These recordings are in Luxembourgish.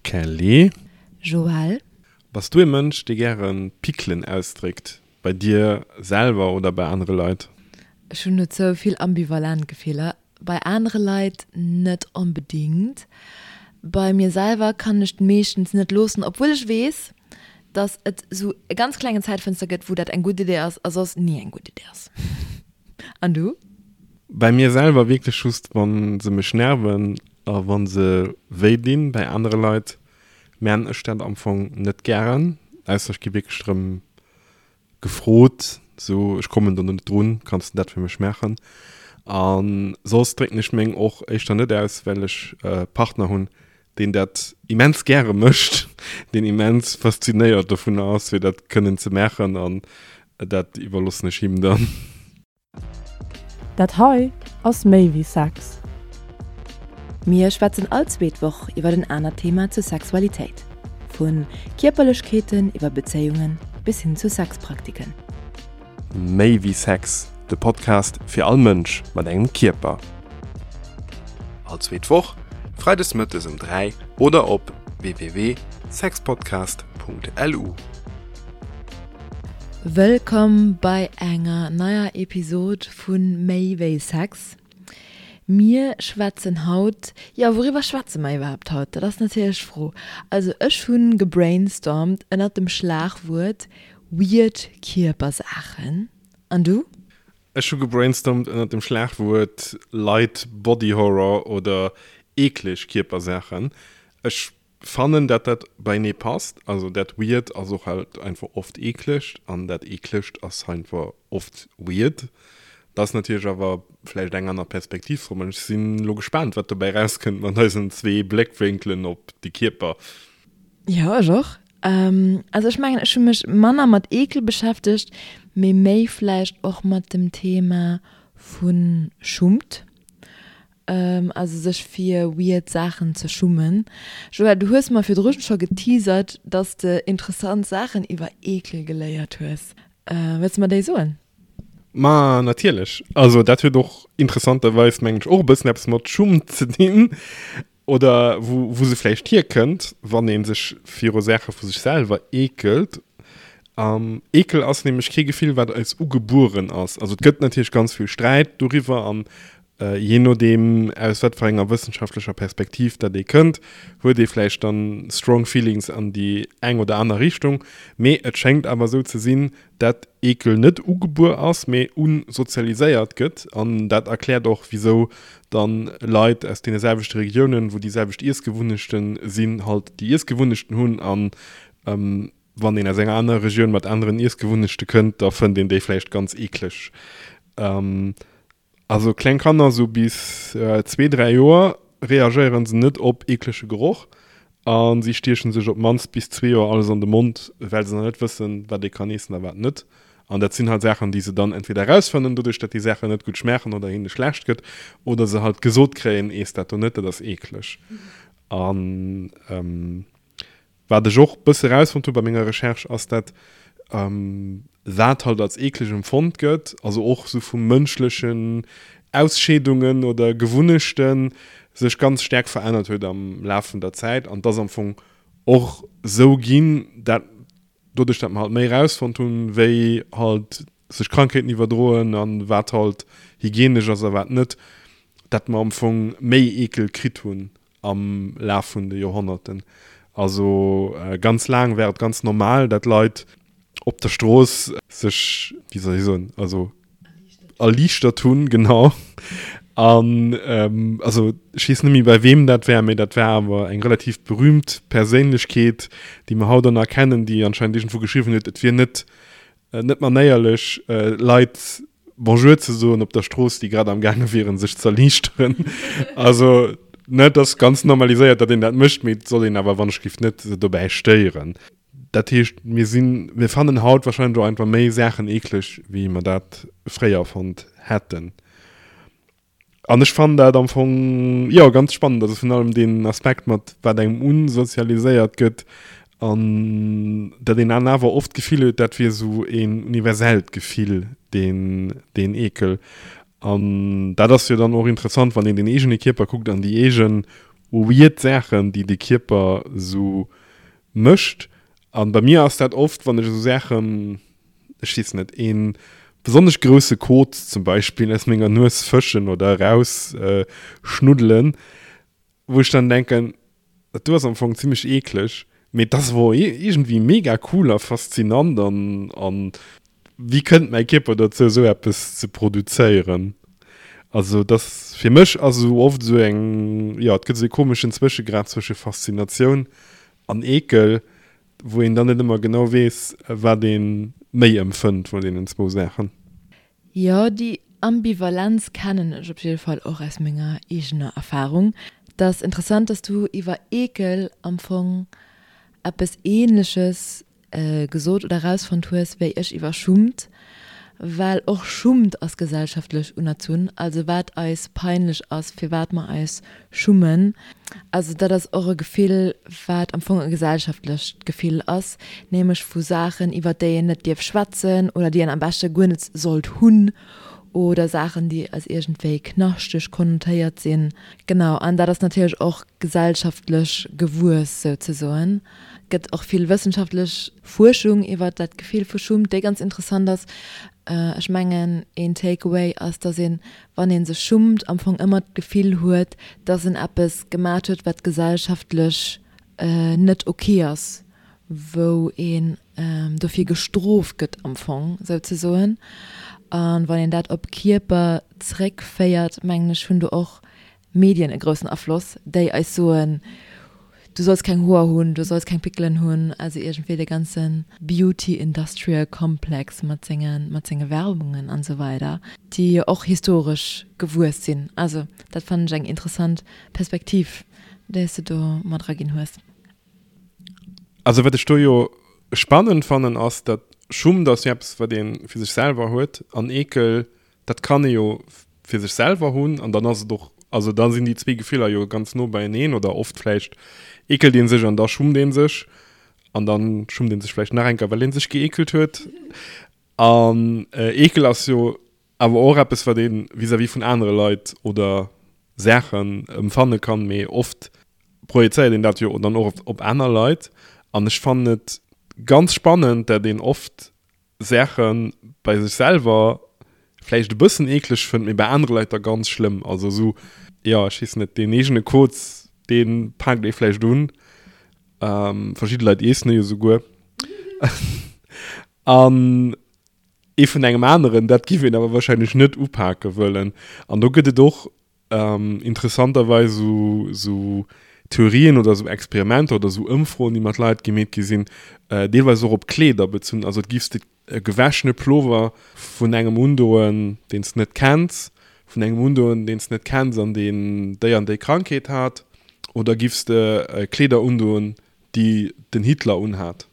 Kelly. Joël. Bass du e Mënsch, dee gäre Pickelen ausdréckt, bei dir selwer oder bei anere Leit? Ech hunn dozou vill ambivalent Gefiller. Bei anere Leit net onbedingt. Bei mir selwer kann ech meeschtens net loossen, obwuel ech weess, dass et sou e ganz klengen Zäitfënster gëtt, wou dat eng gutt Idee ass a soss ni eng gutt Idee ass. An du? Bei mir selwer wierklech just wann se mech nerven a wann se wéi dinn. Bei anere Leit man ech dat am Fong net gären, ausser ech gi wierklech drëm gefrot, sou ech kommen do net drun, kanns de dat fir mech maachen? A soss drécken ech meng och éischter net aus, well ech e Partner hunn, deen dat immens gäre mécht, deen immens faszinéiert dovunner ass, fir dat kënnen ze maachen an dat iwwerloossen ech him dann. Dat hei ass méi wéi Sex. Mir schwätzen all zweet Woch iwwer en anert Thema zur Sexualitéit. Vu Kierperlechkeeten iwwer Bezéiungen bis hin zu Sexpraktiken. Méi wéi Sex, de Podcast fir all Mënsch mat engem Kierper. All zweet Woch, freides mëttes um 3 oder op www.sexpodcast.lu. Wëllkomm bei enger neier Episod vu Méi wéi Sex. Mir schwätzen haut, jo wouriwwer schwätze mer iwwerhaapt haut? Dat ass natierlech d'Fro. Also ech hu gebrainstormt ënnert dem Schlagwuert weird Kierpersaachen. An du? Ech hu gebrainstormt ënnert dem Schlagwuert light body horror oder eekleg Kierpersaachen. Ech Fannen dat dat beinee passt, also dat weird ass och halt einfach oft eeklegt an dat eeklegt ass einfach oft weird. Dat ass natierlech awer vläicht eng aner Perspektiv drop an ech sinn elo gespaant wat dobäi rauskënnt mat eisen zwee Bléckwénkelen op de Kierper. Jo ech och. Also ech mengen ech hu mech manner mat Eekel beschäftegt, mee méi vläicht och mat dem Thema vu Schummt. Also sech fir weird Saachen ze schummen. Joël, du hues mer virdrun scho geteasert, dass de interessant Saachen iwwer Eekel geléiert hues. Wëlls de mer déi soen? Ma natierlech. Also dat huet och interessanterweis, mengen ech, och e bëssen eppes mat Schumm ze dinn. Oder wou, wou se vläicht hierkënnt, wann ee sech viru Saache vu sech selwer eekelt. Eekel ass nämlech kee Gefill, wat eis ugebueren ass. Also et gëtt natierlech ganz vill Sträit doriwwer an Jee nodeem aus wat fir enger wëssenschaftlecher Perspektiv dat ee kënnt, huet ee vläicht dann strong feelings an déi eng oder aner Richtung. Mee et schéngt awer esou ze sinn, dat Eekel net ugebuer ass, mee unsozialiséiert gëtt. An dat erkläert och, wisou dann Leit aus deene selwechte Regiounen, wou déi selwecht Iessgewunnechten sinn, halt déi Iessgewunnechten hunn. An wann een aus enger anerer Regioun mat aneren Iessgewunnechte kënnt, da fënnt een déi vläicht ganz eekleg. Also kleng Kanner, sou bis zwee, 3 Joer, reagéieren se net op eeklege Geroch a si stiechen sech op d'mannst bis zwee Joer alles an de Mond, well se nach net wëssen, wat ee kann eessen a wat net. An dat sinn halt Saachen, déi se dann entweder erausfannen, doduerch dat déi Saachen net gutt schmaachen oder hinne schlecht gëtt, oder se halt gesot kréien, Eess dat do net, dat ass eekleg. An Wat ech och bësse rausfonnt hu bei menger Recherche ass dat wat halt als eekleg empfonnt gëtt, also och sou vu mënschlechen Ausscheedungen oder Gewunnechten, sech ganz staark verännert huet am Laf vun der Zäit an dass am Fong och sou ginn, dat doduerch dat mer halt méi rausfonnt hunn, wéi halt sech Krankheeten iwwerdroen an wat halt hygienesch ass a wat net, dat mer am Fong méi Eekel kritt hunn am Laf vun de Joerhonnerten. Also ganz laang war et ganz normal, dat Leit op der Strooss sech, wéi soll ech soen, also erliichtert hunn, genau. An also ech weess net méi bei weem dat war, mee dat war awer eng relativ berühmt Perséinlechkeet, déi mer haut och nach kennen, déi anscheinend iergendwou geschriwwen huet, et wier net net manéierlech Leit Bonjour ze soen op der Strooss, déi grad am gaange wieren, sech z'erliichteren. Also, ne, et ass ganz normaliséiert, datt een dat mécht, mee et soll een awer wannechgift net se dobäi stéieren. Dat heescht, mir sinn, mir fannen haut wahrscheinlech och einfach méi Saachen eekleg, wéi mer dat fréier fonnt hätten. An ech fannen dat am Fong, jo, ganz spannend. Also virun allem deen Aspekt mat wat engem unsozialiséiert gëtt an dat een dann awer oft d'Gefill huet, dat wier esou een universellt Gefill, deen, deen Eekel. An dat ass jo dann och interessant, wann een den eegene Kierper kuckt an déi eege. weird Saachen, déi de Kierper esou mécht. An bei mir ass dat oft, wann ech esou Saachen, ech weess net, ee besonnesch grousse Kot zum Beispill aus menger Nues fëschen oder eraus schnuddelen, wou ech dann denken, dat do ass am Fong zimmlech eekleg, mee et ass awer och iergendwéi mega cool a faszinant an an wéi kënnt mäi Kierper dozou esou eppes ze produzéieren? Also et ass fir mech ass esou oft esou eng, jo et gëtt esou e komeschen Zwëschegrad zwësche Faszinatioun an Eekel, wou een dann net ëmmer genau weess wat ee méi empfënnt vun deenen zwou Saachen. Jo, déi Ambivalenz kennen ech op jidde Fall och aus menger eegener Erfahrung. Et ass interessant, dass du iwwer Eekel am Fong eppes Ähnleches gesot oder erausfonnt hues, wéi ech iwwer Schummt, well och Schummt ass gesellschaftlech unerzunn, also wat eis peinlech ass, firwat mer eis schummen. Also dat ass och e Gefill, wat am Fong e gesellschaftlecht Gefill ass, nämlech vu Saachen, iwwer déi een net dierf schwätzen oder déi een am beschte guer net sollt hunn oder Saachen, déi als iergendwéi knaschteg konnotéiert sinn. Genau, an dat ass natierlech och gesellschaftlech gewuess souzesoen. Et gëtt och vill wëssenschaftlech Fuerschung iwwer dat Gefill vu Schummt, déi ganz interessant ass. Ech mengen, een Takeaway ass, dass een wann ee sech schummt, am Fong ëmmer d'Gefill huet, dass en eppes gemat huet, wat gesellschaftlech net ok ass, wou een dofir gestrooft gëtt am Fong souzesoen. A wann een dat op Kierper zréckféiert, mengen ech, hunn do och Medien e groussen Afloss, déi eis soen, du solls keng Hoer hunn, du solls keng Pickelen hunn, also iergendwéi de ganze Beauty Industrial Complex mat senge mat senge Werbungen an esou weider, déi jo och historesch gewuess sinn. Also dat fannen ech eng interessant Perspektiv, déi s de do mat eraginn hues. Also wat ech do jo spannend fannen ass, datt Schummt ass jo eppes wat ee fir sech selwer huet an Eekel Dat kann ee jo fir sech selwer hunn an dann ass et och, also da sinn déi zwee Gefiller jo ganz no beieneen oder oft vläicht eekelt ee sech an da schummt ee sech an dann schummt ee sech vläicht nach eng Kéier, well ee sech geekelt huet. An Eekel ass jo awer och eppes, wat ee vis-à-vis vun anere Leit oder Saachen emfanne kann, mee oft projezéiert een dat jo dann och op aner Leit. An ech fannen et ganz spannend, dat een oft Saache bei sech selwer vläicht e bëssen eekleg fënnt, mee bei anere Leit da ganz schlëmm. Also esou, jo, ech weess net, deen eegene Koz, dee paakt ee vläicht un. Verschidde Leit iessen e jo souguer. An ee vun engem aneren, dat giff een awer warscheinlech net upake wëllen. An do gëtt et och Interessanterweis esou Theorien oder esou Experimenter oder esou Ëmfroen, déi mat Leit gemeet gi sinn, deelweis och op Kleeder bezunn. Also et giffs de e gewäschene Plover vun engem undoen, deen s de net kenns, vun engem undoen, deen s de net kenns an deen déi an déi Krankheet hat, oder giffs de Kleeder undoen, déi den Hitler unhat?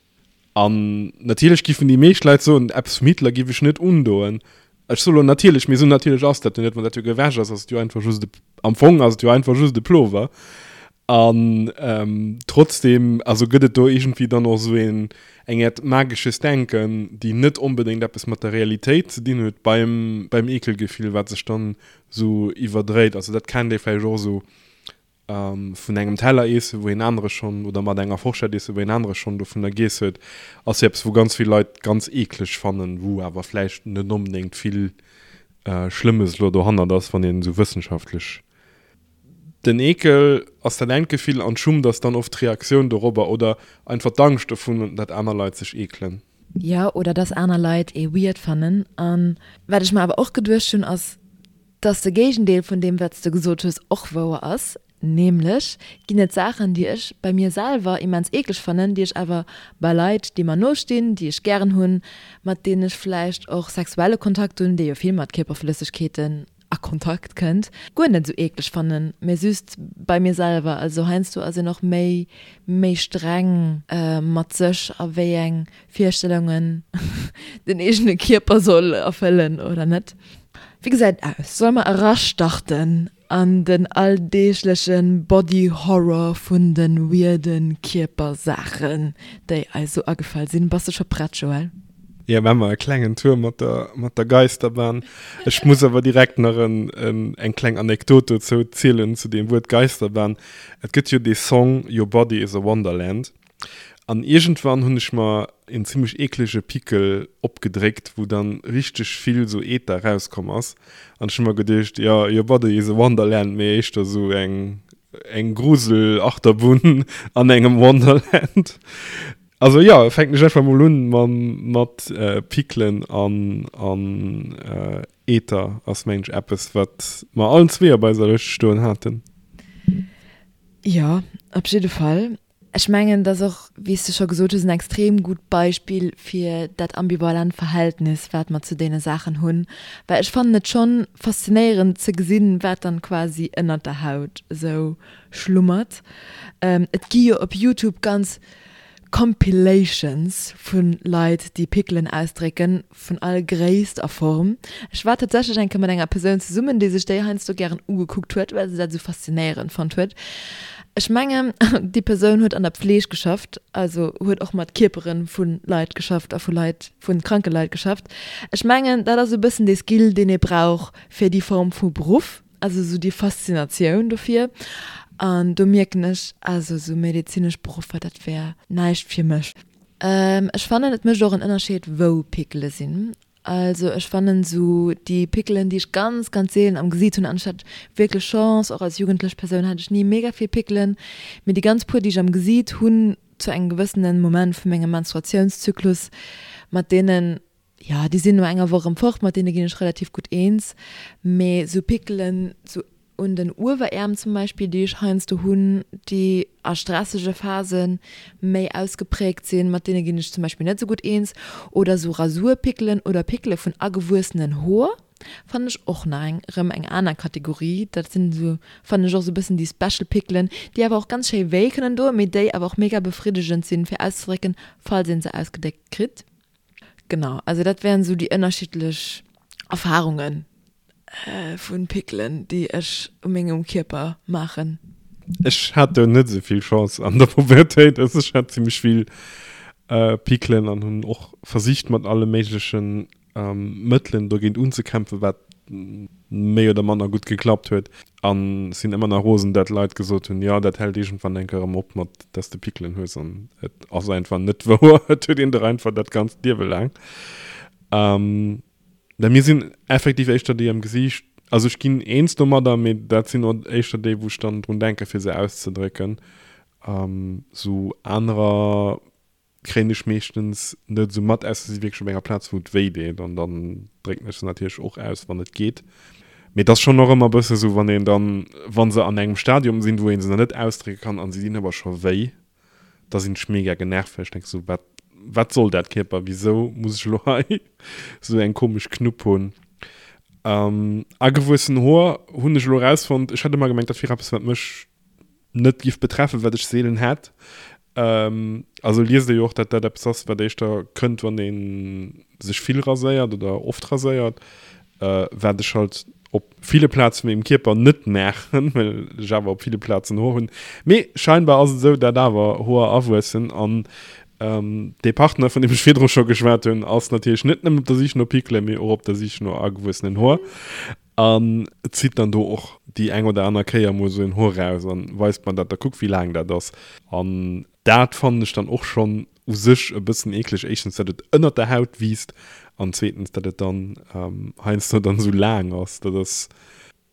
An natierlech giffen déi meescht Leit soen, eppes vum Hitler giff ech net undoen. Ech soe lo natierlech, mee esou natierlech ass dat jo net. Wann dat jo gewäsch ass, ass et jo einfach just e, am Fong ass et jo einfach just e Plover. An trotzdem, also gëtt et do iergendwéi dann och esou een, eng Äert magesches Denken, déi net onbedéngt eppes mat der Realitéit ze dinn huet beim, beim Eekelgefill, wat sech dann esou iwwerdréit. Also dat kennt ee vläicht och esou Vun engem Teller iessen, wou een anere schonn, oder mat enger Forschett iessen, wou een anere schonn dovunner giess huet, ass jo eppes, wou ganz vill Leit ganz eekleg fannen, wou awer vläicht net onbedéngt vill Schlëmmes elo dohannert ass, wann een esou wëssenschaftlech. Den Eekel ass dat engt Gefill an d'Schummt ass dann oft d'Reaktioun dorobber oder einfach d'Angscht dovun, dat aner Leit sech eekelen. Jo, oder dass aner Leit ee weird fannen. An wat ech mer awer och geduecht hunn, ass, Dass de Géigendeel vun deem wat s de gesot hues och wouer ass, nämlech ginn et Saachen déi ech bei mir selwer immens eekleg fannen, déi ech awer bei Leit déi mer no stinn, déi ech gären hunn, mat deenen ech vläicht och sexuelle Kontakt hunn, dee jo vill mat Kierperflëssegkeeten a Kontakt kënnt, guer net esou eekleg fannen, mä just bei mir selwer. Also heiansdo ass een och méi méi streng mat sech a wéi eng Virstellungen den eegene Kierper soll erfëllen oder net. Wéi gesäit et aus? Solle mer erastarten an den alldeegleche Body Horror vun de weirde Kierpersaachen, déi eis esou agefall sinn? Bass de scho prett, Joël? Jo, maache mer e klengen Tour mat der, mat der Geisterbahn. Ech muss awer direkt nach en, en, eng kleng Anekdot dozou zielen, zu deem Wuert Geisterbahn. Et gëtt jo dee Song Your Body is a Wonderland. An iergendwann hunn ech mer en zimmlech eeklege Pickel opgedréckt, wou dann richteg vill sou Eeter rauskomm ass. An ech hu mer geduecht, jo, Your Body is a Wonderland, mee éischter sou eng, eng Grusel-Achterbunn an engem Wonderland. Also jo, fänken ech einfach mol un mam, mat Pickelen an, an Eeter ass mengen ech eppes, wat mer allen zwee op eiser Lëscht stoen haten. Jo, op jidde Fall. Ech mengen, et ass och, wéi s de scho gesot hues, en extrem gutt Beispill fir dat ambivalent Verhältnis, wat mer zu deene Saachen hunn. Well ech fannen et schonn faszinéierend ze gesinn, wat dann quasi ënnert der Haut esou schlummert. Et gi jo op Youtube ganz Compilations vu Leit, déi Pickelen ausdrécken, vun all Gréisst a Form. Ech war tatsächlech eng Kéier mat enger Persoun zesummen, déi sech déi heiansdo gären ugekuckt huet, well se dat esou faszinéierend fonnt huet. Ech mengen, déi Persoun huet an der Pfleeg geschafft, also huet och mat Kierpere vu Leit geschafft a vu Leit, vu kranke Leit geschafft. Ech mengen, dat ass e bëssen dee Skill, deen ee brauch fir déi Form vu Beruff, also esou déi Faszinatioun dofir. An do mierken ech, also esou medezinesch Beruffer, dat wär näischt fir mech. Ech fannen et mécht och en Ënnerscheed wou Pickele sinn. Also ech fannen sou déi Pickelen déi ech ganz ganz seelen am Gesiit hunn, an ech hat wierklech Chance, och als jugendlech Persoun hat ech ni mega vill Pickelen, mee déi ganz puer déi ech am Gesiit hunn zu engem gewëssenen Moment vu mengem Menstruatiounszyklus, mat deenen jo déi sinn no enger Woch erëm fort, mat deene ginn ech relativ gutt eens, mee sou Pickelen sou un den Ueweräerm zum Beispill, déi ech heiansdo hunn, déi a stressege Phase méi ausgepräägt sinn, mat deene ginn ech zum Beispill net esou gutt eens. Oder sou Rasurpickelen oder Pickele vun agewuessenen Hoer fannen ech och nach eng erëm eng aner Kategorie. Dat sinn esou, fannen ech och esou e bëssen déi special Pickelen, déi awer och ganz schéi wéi kënnen doen, mee déi awer och mega befriddegend sinn, fir auszedrécken, falls ee se ausgedéckt kritt. Genau, also dat wären esou déi ënnerschiddlech Erfarungen vun Pickelen, déi ech u mengem Kierper maachen. Ech hat do net esou vill Chance an der Pubertéit, also ech hat zimmlech vill Pickelen an hunn och versicht mat alle méiglechen Mëttelen dogéint unzekämpfen, wat méi oder manner gutt geklappt huet. An sinn ëmmer nach rosen, dat Leit gesot hunn, jo dat hält iergendwann eng Kéier erëm op mat dass de Pickelen hues an et ass einfach net wouer, et huet een der einfach dat ganzt Liewe laang. Mä mir sinn effektiv éischter déi am Gesiicht, also ech ginn eens domadder, mee dat sinn och éischter déi wou ech dann drun denke fir se auszedrécken. Sou anerer kréien ech meeschtens net esou mat, ausser se si wierklech op enger Plaz, wou et wéi deet an dann drécken ech se natierlech och aus, wann et geet. Mee et ass schonn och ëmmer e bësse sou, wann een dann, wa se an engem Stadium sinn, wou ee se nach net ausdrécke kann an se dinn awer scho wéi, da sinn ech mega genervt, well ech denke sou, wat, wat soll dat Kierper, wisou muss ech elo hei sou eng komesch Knupp hunn? Agewuessen Hoer hunn ech elo erausfonnt, ech hat ëmmer gemengt, dat wier eppes, wat mech net giff betreffen, wat ech seelen hätt. Also liest ee jo och, dat dat eppes ass, wat éischter kënnt, wann ee sech vill raséiert oder oft raséiert, wat ech halt op ville Plaze vu mengem Kierper net maachen, well ech awer op ville Plazen Hoer hunn. Mee scheinbar ass et esou, dat awer Hoer awuessen an dee Partner, vun deem ech virdru scho geschwat hunn, ass natierlech net nëmmen op der Sich no Pickelen, mee och op der Sich no agewuessenen Hoer. An zitt dann do och déi eng oder aner Kéier mol esou en Hoer raus an weist mer dat, da kuck wéi laang dat ass. An dat fannen ech dann och schonn u sech e bëssen eekleg, éischtens dat et ënnert der Haut wiisst an zweetens dat et dann heiansdo dann esou laang ass. Dat ass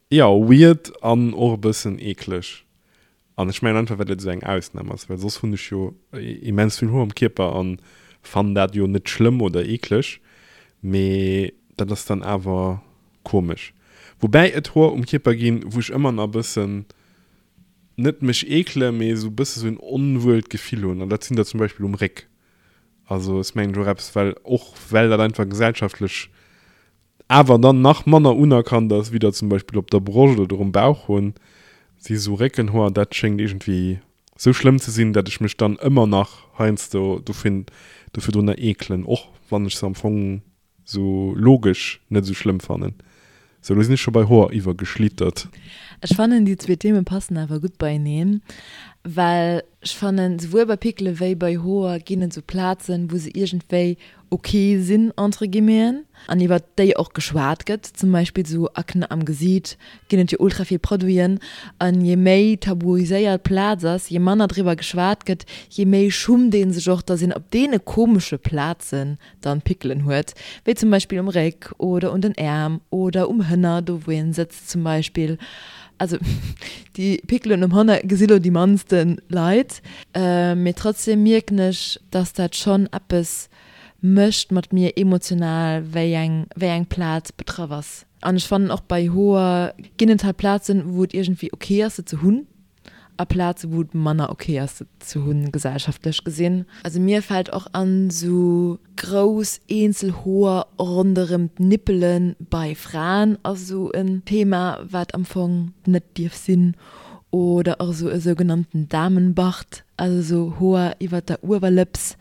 jo weird an och e bëssen eekleg. An ech mengen einfach well et esou eng Ausnam ass, well soss hunn ech jo immens vill Hoer um Kierper an fannen dat jo net schlëmm oder eekleg, mee dat ass dann awer komesch. Woubäi et Hoer um Kierper ginn, wou ech ëmmer nach e bëssen, net mech eekele, mee esou e bësse sou en onwuelt Gefill hunn an dat sinn der zum Beispill um Réck. Also ass mengen ech och eppes, well och well dat einfach gesellschaftlech awer dann nach manner unerkannt ass, wéi der zum Beispill op der Broscht oder um Bauch hunn, si sou Réckenhoer. Dat schéngt iergendwéi sou schlëmm ze sinn, dat ech mech dann ëmmer nach heiansdo dofir dofir drunner eekelen, och wann ech se am Fong sou logesch net sou schlëmm fannen. Sou, lo sinn ech scho bei Hoer iwwergeschlittert. Ech fannen déi zwee Themen passen awer gutt beieneen. Well ech fannen, souwuel bei Pickele wéi bei Hoer ginn et sou Plazen, wou se iergendwéi ok sinn, entre guillemeten, an iwwert déi och geschwat gëtt. Zum Beispill sou Akne am Gesiit ginn et jo ultra vill Produiten. An je méi tabuiséiert d'Plaz ass, je manner driwwer geschwat gëtt, je méi schummt ee sech och, dass een op deene komesche Plazen dann Pickelen huet, wéi zum Beispill um Réck oder un den Äerm oder um Hënner, do wou een sëtzt zum Beispill. Also déi Pickelen um Hënner gesi lo déi mannste Leit, mee trotzdem mierken ech, dass dat schonn eppes mécht mat mir emotional, wéi eng wéi eng Plaz betraff ass. An ech fannen och bei Hoer ginn et halt Plazen, wou et iergendwéi ok ass se ze hunn. A Plaze wou et manner ok ass se ze hunn, gesellschaftlech gesinn. Also mir fällt och an sou grouss eenzel Hoer ronderem d'Nippelen bei Fraen ass sou en Thema wat am Fong net dierf sinn. Oder och sou e sougenannten Damenbart, also sou Hoer iwwert der Uewerlëps,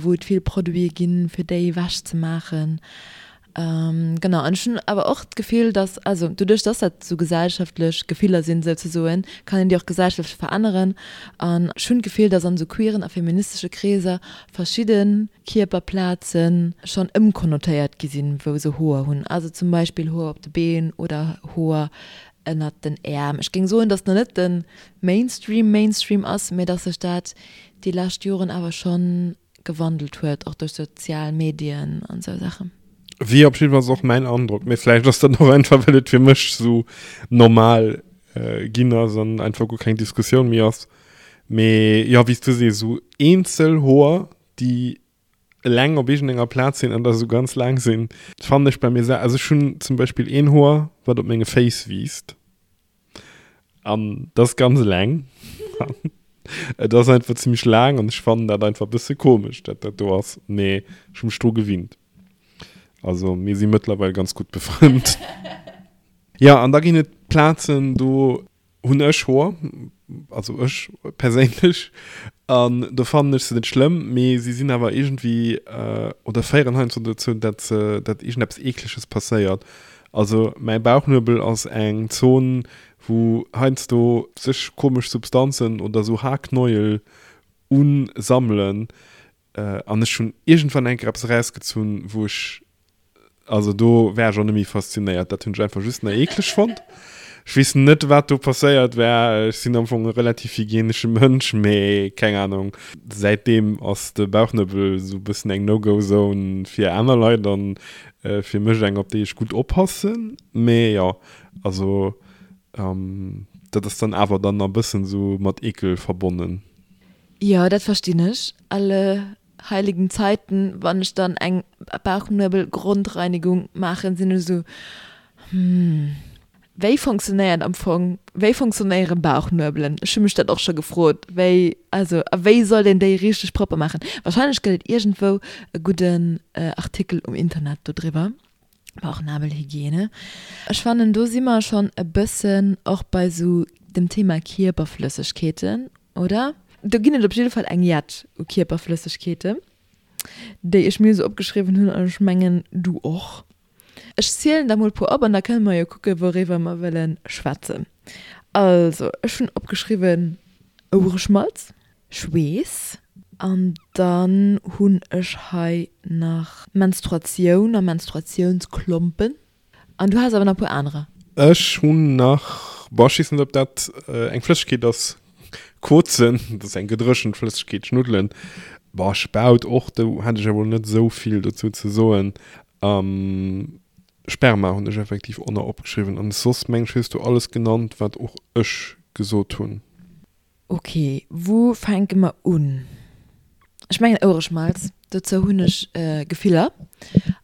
wou et vill Produite ginn fir déi ewech ze maachen. Genau, an ech hunn awer och d'Gefill, dass, also doduerch, dass dat esou gesellschaftlech Gefiller sinn souzesoen, kann een déi och gesellschaftlech veränneren. An ech hunn d'Gefill, dass an esou queeren a feministesche Kreeser verschidde Kierperplaze schonn ëmkonnotéiert gi sinn, wou se Hoer hunn, also zum Beispill Hoer op de Been oder Hoer ënnert den Äerm. Ech géing soen, dass nach net de Mainstream Mainstream ass, mä dass sech dat déi lescht Joren awer schonn gewandelt huet, och duerch sozial Medien an esou Saachen. Wier op jiddefalls och mäin Androck, mee vläicht ass dat och einfach well et fir mech sou normal ginn ass an einfach guer keng Diskussioun méi ass. Mee jo, wéi s du sees, sou eenzel Hoer déi eleng op iergendenger Plaz sinn an da sou ganz laang sinn, fannen ech bei mir sel, also ech hunn zum Beispill een Hoer wat op menge Féiss wiisst. An dat ass ganz eleng. Et ass einfach zimmlech laang an ech fannen dat einfach e bësse komesch, dat dat do ass. Mee ech hu mech dru gewinnt. Also mir si mëttlerweil ganz gutt befrënnt. Jo, an da ginn et Plazen, do hunn ech Hoer, also ech perséinlech, an do fannen ech se net schlëmm, mee si sinn awer iergendwéi oder féieren heiansdo dozou, dat se, dat iergendeppes Eekleges passéiert. Also mäi Bauchnuebel ass eng Zon wou heiansdo sech komesch Substanzen oder sou Haarknäuel unsammelen an ech hunn iergendwann eng Kéier eppes erausgezunn wou ech, also do war ech och net méi faszinéiert, dat hunn ech einfach just nach eekleg fonnt. Ech weess net wat do passéiert war, ech sinn am Fong e relativ hygienesche Mënsch, mee keng Ahnung, säitdeem ass de Bauchnuebel sou e bëssen eng No-Go-Zone fir aner Leit an Fir mech eng op déi ech gutt oppassen, mee jo, also dat ass dann awer dann a bëssen sou mat Ekel verbonnen. Jo, dat verstinn ech. Alle heiligen Zeiten, wann ech dann eng Bauchnuebel-Grondreinigung maachen, sinn ech sou, hm. Wéi fonctionnéiert am Fong, wéi fonctionnéiere Bauchnuebelen? Ech hu mech dat och scho gefrot, wéi, also a wéi soll een déi richteg propper maachen? Wahrscheinlech gëtt et iergendwou e gudden Artikel um Internet dodriwwer, Bauchnabelhygiene. Ech fannen do si mer schonn e bëssen och bei sou dem Thema Kierperflëssegkeeten, oder? Do ginn et op jidde Fall eng jett u Kierperflëssegkeeten, déi ech mir sou opgeschriwwen hunn an ech mengen du och. Ech zielen der mol puer op an da kënne mer jo kucke wouriwwer mer wëlle schwätzen. Also ech hunn opgeschriwwen Ouereschmalz, Schweess an dann hunn ech hei nach Menstruatioun a Menstruatiounsklompen an du has awer nach e puer anerer. Ech hunn nach, boah ech weess net ob dat eng Flëssegkeet ass, Kozen, dat ass eng gedréchent Flëssegkeet, Schnuddelen, boah Spaut och, do hätt ech awer net esou vill dozou ze soen. Sperma hunn ech effektiv och nach opgeschriwwen an soss meng ech hues du alles genannt wat och ech gesot hunn. Ok, wou fänke mer un? Ech mengen Ouereschmalz, dozou hunn ech Gefiller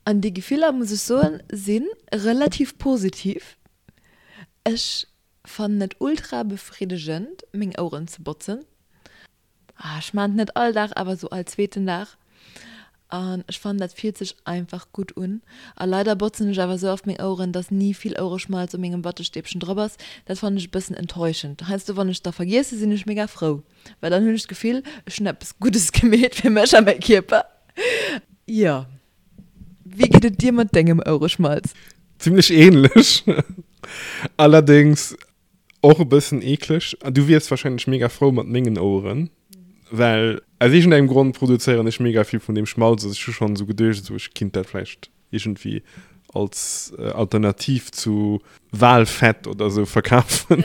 an déi Gefiller muss ech soen si relativ positiv. Ech fannen et ultra befriddegend meng Oueren ze botzen. Ah, ech maan et net all Dag, awer sou all zweeten Dag. An ech fannen dat fillt sech einfach gutt un. A leider botzen ech awer sou oft meng Oueren, dass ni vill Ouereschmalz op mengem Wattestäbchen drop ass. Dat fannen ech e bëssen enttäuschend. Heiansdo wann ech da vergiessen, sinn ech mega frou, well dann hunn ech d'Gefill, ech hunn eppes Guddes gemeet fir mech a mäi Kierper. Jo. Wéi geet et dir mat dengem Ouereschmalz? Zimlech ähnlech. Allerdéngs. Och e bëssen eekleg. Du wiers wahrscheinlech mega frou mat mengen Oueren, well aus iergendengem Grond produzéieren ech mega vill vun deem Schmalz. Also ech hu schonn esou geduecht, esou ech kinnt dat vläicht iergendwéi als Alternativ zu Walfett oder esou verkafen.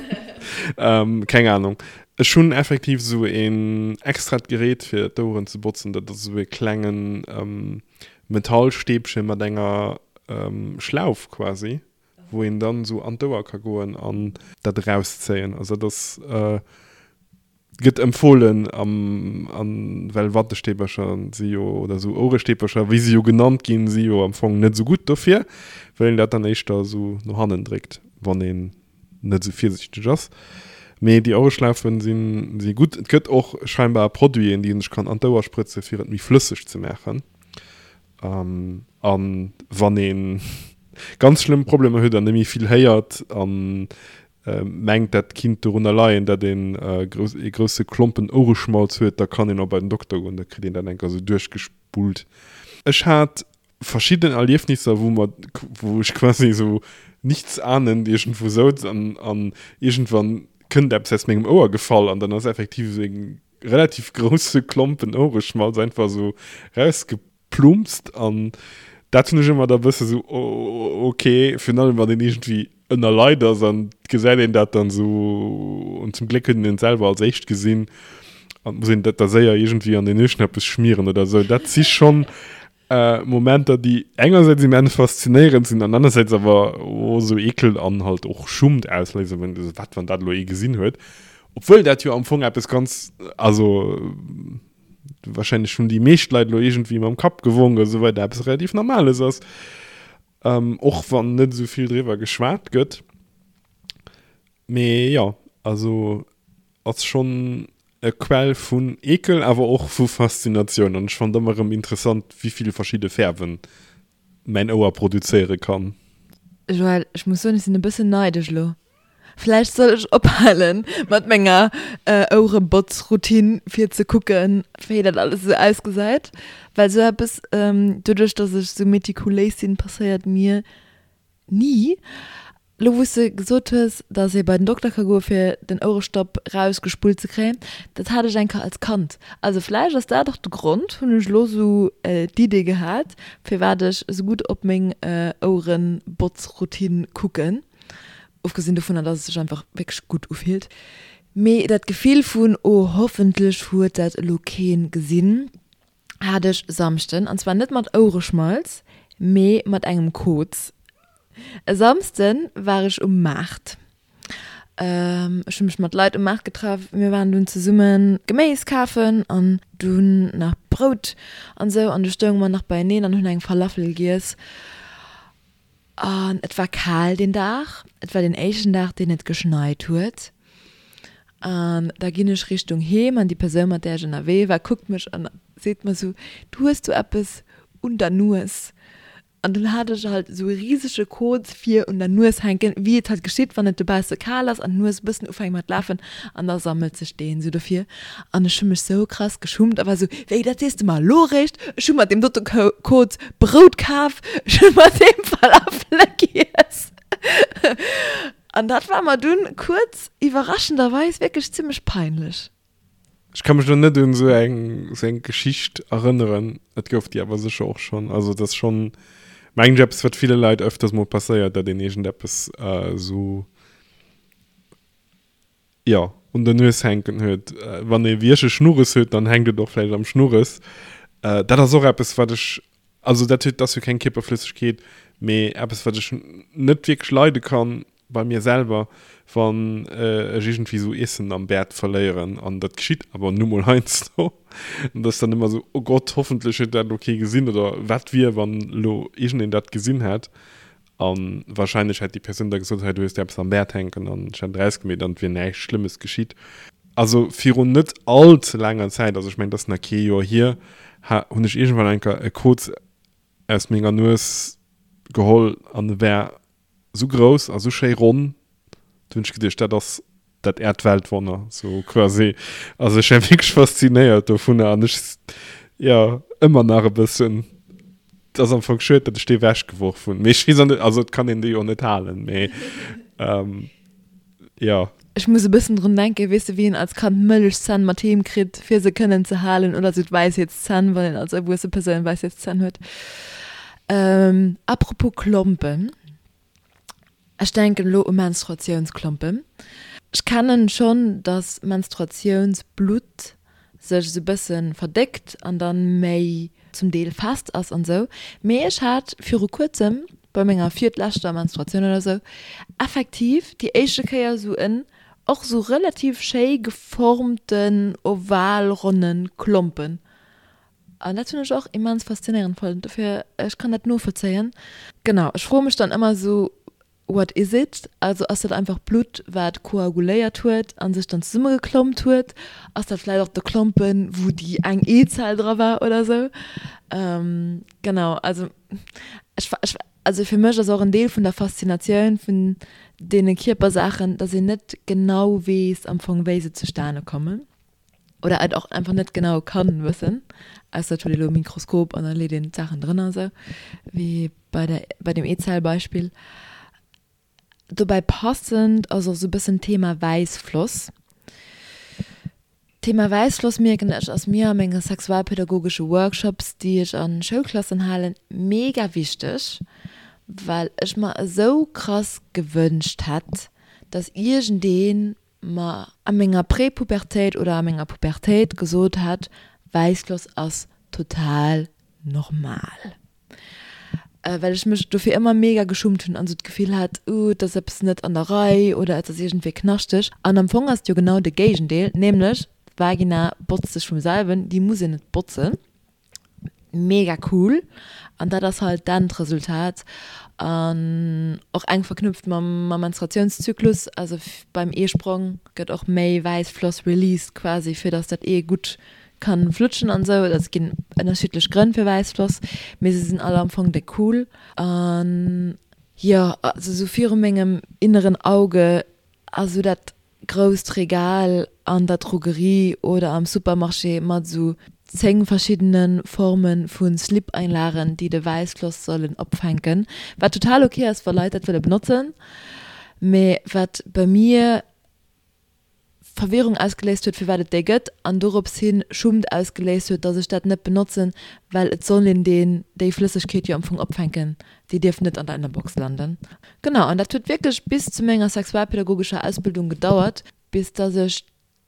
Keng Ahnung. Ech hunn effektiv esou een extrat Gerät fir d'Oueren ze botzen. Dat ass esou e klengen Metallstäbche mat enger Schlauf quasi. wou een dann esou an d'Ouer ka goen an dat erauszéien. Also dat ass, gëtt empfohlen am, an well Wattestäbercher si jo, oder esou Ouerestäbercher, wéi se jo genannt ginn, si jo am Fong net esou gutt dofir, well een dat dann éischter esou no hannen dréckt, wann een net esou virsiichteg ass. Mee déi Ouereschlaufen sinn, si gutt. Et gëtt och scheinbar Produiten, déi een sech kann an d'Ouer sprëtze fir et méi flësseg ze maachen. An wann ee ganz schlëmm Problemer huet an net méi vill héiert a mengt, dat kinnt dorunner leien, datt een ee grousse Klompen Ouereschmalz huet, da kann een och bei den Dokter goen, da kritt een dat eng Kéier esou duerchgespullt. Ech hat verschidden Erliefnisser, wou mer, wou ech quasi esou nichtsahnend iergendwou souz an an iergendwann kënnt eppes aus mengem Ouer gefall an dann ass effektiv esou e relativ grousse Klompen Ouereschmalz einfach esou rausgeplumpst an dat hunn ech ëmmer da bësse sou ok, virun allem wann een iergendwéi ënner Leit ass an gesäit een dat dann sou an zum Gléck huet een et selwer als éischt gesinn an muss een dat da séier iergendwéi an den Nueschnappes schmieren oder sou. Dat si schonn Momenter déi engersäits immens faszinéierend sinn an anersäits awer och esou Eekel an halt och Schummt ausléisen, wenn du wat wann dat elo ee gesinn huet, obwuel dat jo am Fong eppes ganz, also wahrscheinlech hunn déi meescht Leit elo iergendwéi mam Kapp gewonk a sou weider, eppes relativ Normales ass, och wann net esou vill driwwer geschwat gëtt. Mee jo, also ass schonn e Quell vun Eekel, awer och vu Faszinatioun. An ech fannen et ëmmer erëm interessant, wéi vill verschidde Fäerwen mäin Ouer produzéiere kann. Joël, ech muss soen, ech sinn e bëssen neidesch elo. Vläicht soll ech ophale mat menger Ouerebotzroutine, fir ze kucken, wéi dat alles esou ausgesäit. Well esou eppes, doduerch dass ech esou metikuléis sinn, passéiert mir ni. Lo wou s de gesot hues, dass ee bei den Dokter ka goe fir den Ouerestopp rausgespullt ze kréien, dat hat ech eng Kéier als Kand. Also vläicht ass dat och de Grond, hunn ech elo sou d'Idee gehat, firwat ech esou gutt op meng Ouerenbotzroutine kucken. Ofgesinn dovunner, dass et sech einfach wierklech gutt ufillt. Mee dat Gefill vun, oh hoffentlech huet dat elo keen gesinn, hat ech Samschden, an zwar net mat Ouereschmalz, mee mat engem Koz. E Samsden war ech um Maart. Ech hu mech mat Leit um Maart getraff. Mir waren dunn zesumme Geméis kafen an dunn nach Brout an esou. An du stounge mer nach beieneen an hunn eng Falafel giess. An et war kal deen Dag. Et war deen éischten Dag, deen et geschneit huet. An da ginn ech Richtung Heem an déi Persoun, mat där ech ënnerwee war, kuckt mech an seet mer esou, Du hues do eppes un der Nues. An dunn hat ech halt esou e risege Koz vir un der Nues hänken, wéi et halt geschitt, wann et dobausse kal ass an d'Nues e bëssen ufänkt mat lafen an da sammelt sech deen esou dofir. An ech hu mech sou krass geschummt a war sou, Wéi, dat sees de mer elo eréischt? Ech hu mat deem dote Koz Brout kaf, ech hu mat deem Falafele giess. An dat war mer dunn kuerz iwwerraschenderweis wierklech zimmlech peinlech. Ech ka mech elo net un esou eng esou eng Geschicht erënneren, et gouf déi awer sécher och schonn. Also et ass schonn, mengen ech, eppes wat ville Leit öfters mol passéiert, datt een iergendeppes esou, jo, un der Nues hänken huet. Wann ee wéi ech e Schnurres huet, dann hänkt et och vläicht am Schnurres. Dat ass och eppes wat ech, also dat huet, ass jo keng Kierperflëssegkeet, mee eppes wat ech net wierklech leide kann bei mir selwer, wann ech iergendwéi esou Iessen am Bäert verléieren, an dat geschitt awer nu mol heiansdo, an dat ass dann ëmmer esou, oh Gott, hoffentlech huet dat elo kee gesinn, oder wat wier, wann elo iergendeen dat gesinn hätt, a warscheinlech hätt déi Persoun da gesot, hei du hues der eppes am Bäert hänken, an ech hätt et erausgemeet an et wier näischt Schlëmmes geschitt. Also virun net all ze laanger Zäit, also ech mengen, et ass nach kee Joer hier, ha hunn ech iergendwann eng Kéier e Koz aus menger Nues geholl an e war Sou grouss a sou schéi ronn, do hunn ech geduecht, dat ass dat Äerdweltwonner, sou quasi. Also ech war wierklech faszinéiert dovunner an ech, jo, ëmmer nach e bëssen. Et ass am Fong schued, datt ech dee wechgeworf hunn, mee ech weess och net, also et kann een dee jo net halen, mee jo. Ech muss e bëssen drun denken, weess de, wéi een als Kand Mëllechzänn mat heem kritt, fir se kënnen ze halen, oder sou d'Wäisheetszänn, wann een als erwuesse Persoun Wäisheetszänn huet. Apropos Klompen, ech denken elo u Menstruatiounsklompen. Ech kennen schonn, dass Menstruatiounsblutt sech esou bëssen verdéckt an dann méi zum Deel fest ass an sou, mee ech hat viru kuerzem bei menger virtleschter Menstruatioun oder sou effektiv déi éischte Kéier sou en och sou relativ schéi geformten oval-ronnen Klompen an dat hunn ech och immens faszinéierend fonnt, dofir ech kann dat novollzéien. Genau, ech froe mech dann ëmmer sou What is it? Also ass dat einfach Blutt wat koaguléiert huet an sech dann zesummegeklompt huet? Ass dat vläit och de Klompen wou déi eng Eezell dra war oder sou? Genau, also ech ech also fir mech ass och en Deel vun der Faszinatioun vun deene Kierpersaachen, dass een net genau weess am Fong wéi se zustane kommen oder et och einfach net genau kann wëssen, ausser et huet ee lo e Mikroskop an da leet een d'Saachen drënner esou wéi bei der bei dem Eezellbeispill. Dobäi passend ass och esou e bëssen d'Thema Wäissfloss. D'Thema Wäissfloss mierken ech ass mir a menge sexualpädagogesche Workshops déi ech a Schoulklassen halen mega wichteg, well ech mer esou krass gewënscht hätt, dass iergendeen mer a menger Prepubertéit oder a menger Pubertéit gesot hätt, Wäissfloss ass total normal. Well ech mech dofir ëmmer mega geschummt hunn an esou d'Gefill hat, uh, et ass eppes net an der Rei oder et ass iergendwéi knaschteg. An am Fong ass et jo genau de Géigendeel, nämlech d'Vagina botzt sech vum selwen, déi muss een net botzen. Mega cool an dat ass halt d'Endresultat an och enk verknüpft mam mam Menstruatiounszyklus, also beim Eesprong gëtt och méi Wäissfloss released quasi fir dass dat Ee gutt kann flutschen an sou. Also et ginn ënnerschiddlech Grënn fir Wäissfloss, mee se sinn all am Fong déck cool an jo also sou viru mengem inneren Auge ass sou dat grousst Regal an der Drogerie oder am Supermarché mat esou 10 verschiddene Forme vu Slip-Einlagen, déi de Wäissfloss sollen opfänken, wat total ok ass, wa Leit dat wëlle benotzen, mee wat bei mir Verwirrung ausgeléist huet, firwat et déi gëtt, an dorops hi Schummt ausgeléist huet, dass ech dat net benotzen, well et soll een deen, déi Flëssegkeet jo am Fong opfänken, déi dierf net an der Ënnerbox landen. Genau, an dat huet wierklech bis zu menger sexualpädagogescher Ausbildung gedauert, bis dass ech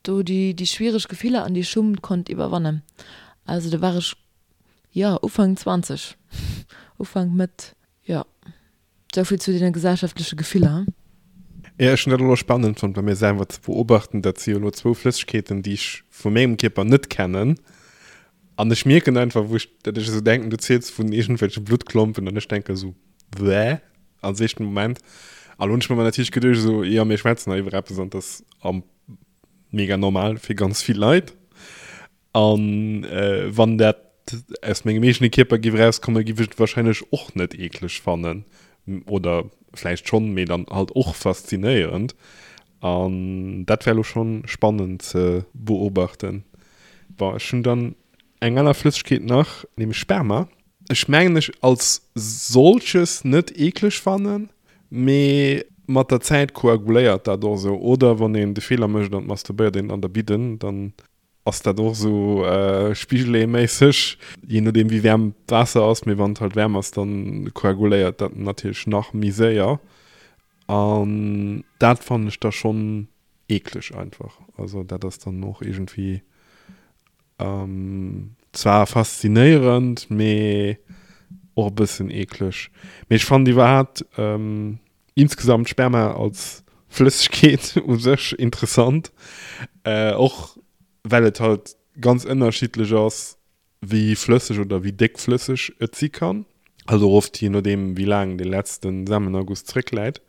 do déi, déi schwiereg Gefiller an déi Schummt konnt iwwerwannen. Also do war ech, jo, Ufank 20, Ufank, Mëtt, jo. Souvill zu deene gesellschaftleche Gefiller. Jo, ech hunn dat elo spannend fonnt bei mir selwer ze beobachten. Dat si jo elo zwou Flëssegkeeten, déi ech vu mengem Kierper net kennen. An ech mierken einfach, wou ech, dat ech esou denken, du ziels vun iergendwelche Bluttklompen an ech denke esou, Bäh, als éischten Moment. An lo hunn ech mer natierlech geduecht esou, jo, mir schwätzen hei iwwer eppes an dat ass am mega normal fir ganz vill Leit. An wann dat aus mengem eegene Kierper giff erauskommen, giff ech et wahrscheinlech och net eekleg fannen. Oder vläicht schonn, mee dann halt och faszinéierend. An dat wär elo schonn spannend ze beobachten. Bon, ech hunn dann eng aner Flëssegkeet nach, nämlech Sperma. Ech mengen ech als solches net eekleg fannen, mee mat der Zäit koaguléiert dat och esou. Oder wann een de Feeler mécht an masturbéiert een an der Bidden, dann ass dat och esou Spigeleeméisseg, jee nodeem wéi waarm d'Waasser ass, mee wann et halt waarm ass, dann koaguléiert dat natierlech nach méi séier an dat fannen ech da schonn eekleg einfach. Also dat ass dann och iergendwéi zwar faszinéierend, mee och e bëssen eekleg. Mee ech fannen iwwerhaapt insgesamt Sperma als Flëssegkeet u sech interessant, och well et halt ganz ënnerschiddlech ass, wéi flësseg oder wéi déckflësseg et si kann. Also och oft jee nodeem wéi laang dee letzte Samenerguss zréckläit.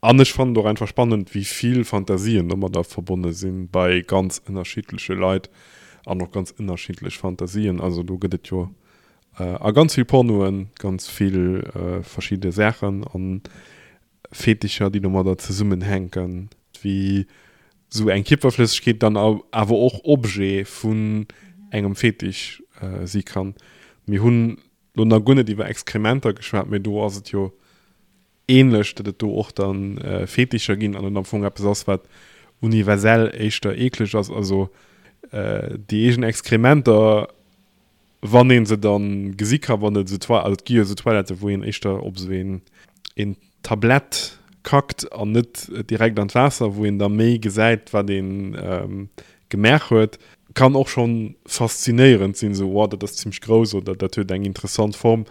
An ech fannen et och einfach spannend, wéi vill Fantasien domadder verbonne sinn, bei ganz ënnerschiddleche Leit an och ganz ënnerschiddlech Fantasien. Also do gëtt et jo A ganz vill Pornoen, ganz vill verschidde Saachen an Fetischer, déi domadder zesummenhänken, wéi sou eng Kierperflëssegkeet dann awer och Objet vun engem Fetisch si kann. Mir hunn lo nach guer net iwwer Exkrementer geschwat, mee do ass et jo ähnlech, datt et do och dann Fetischer ginn an et am Fong eppes ass, wat. universell éischter eekleg ass. Also déi eegen Exkrementer, wann ee se dann gesi ka, wann et esou Toi, also et gi jo esou Toiletten, wou een éischter op esou een, een Tablett kackt an net direkt an d'Waasser, wou een da méi gesäit, wat ee gemaach huet, kann och schonn faszinéierend sinn, esou, wow, dat ass zimmlech grouss oder dat huet eng interessant Form,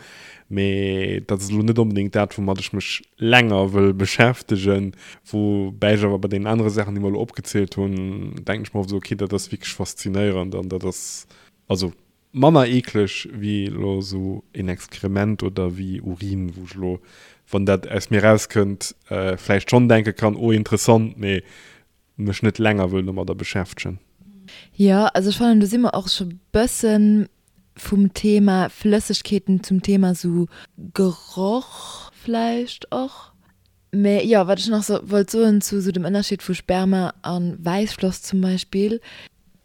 mee dat ass elo net onbedéngt dat, woumat ech mech länger wëll beschäftegen. Woubäi ech awer bei deenen anere Saachen, déi mer elo opgezielt hunn, denken ech mer oft esou, okay, dat ass wierklech faszinéierend an dat ass also manner eekleg wéi elo esou een Exkrement oder wéi Urin, wou ech elo, wann dat aus mir rauskënnt, vläicht schonn denke kann, oh interessant, mee mech net länger wëll domadder beschäftegen. Jo, also ech fannen do si mer och scho bëssen vum Thema Flëssegkeeten zum Thema sou Geroch vläicht och. Mä jo, wat ech nach so wollt soen zu sou dem Ënnerscheed vu Sperma a Wäissfloss zum Beispill,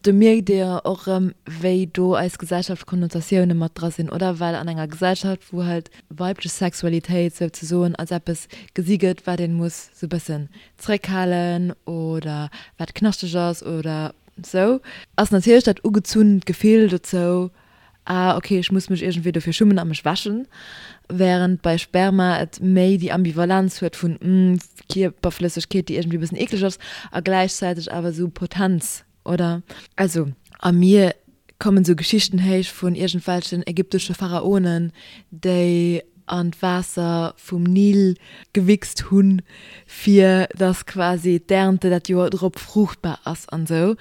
do mierkt ee jo och erëm, wéi do eis Gesellschaft Konnotatioune mat dra sinn, oder? Well an enger Gesellschaft, wou halt weiblech Sexualitéit souzesoen als eppes gesi gëtt, wat ee muss sou bëssen zréckhalen oder wat knaschteg ass oder sou, ass natierlech dat ugezunnt Gefill dozou, ah ok, ech muss mech iergendwéi dofir schummen a mech wäschen, wärend bei Sperma et méi déi Ambivalenz huet vun, hm, Kierperflëssegkeet, déi iergendwéi e bëssen eekleg ass a gläichzäiteg awer sou Potenz, oder? Also a mir kommen sou Geschichten héich vun iergendwelchen ägyptesche Pharaonen, déi an d'Waasser vum Nil gewichst hunn, fir dass quasi d'Ernte dat Joer drop fruuchtbar ass an sou.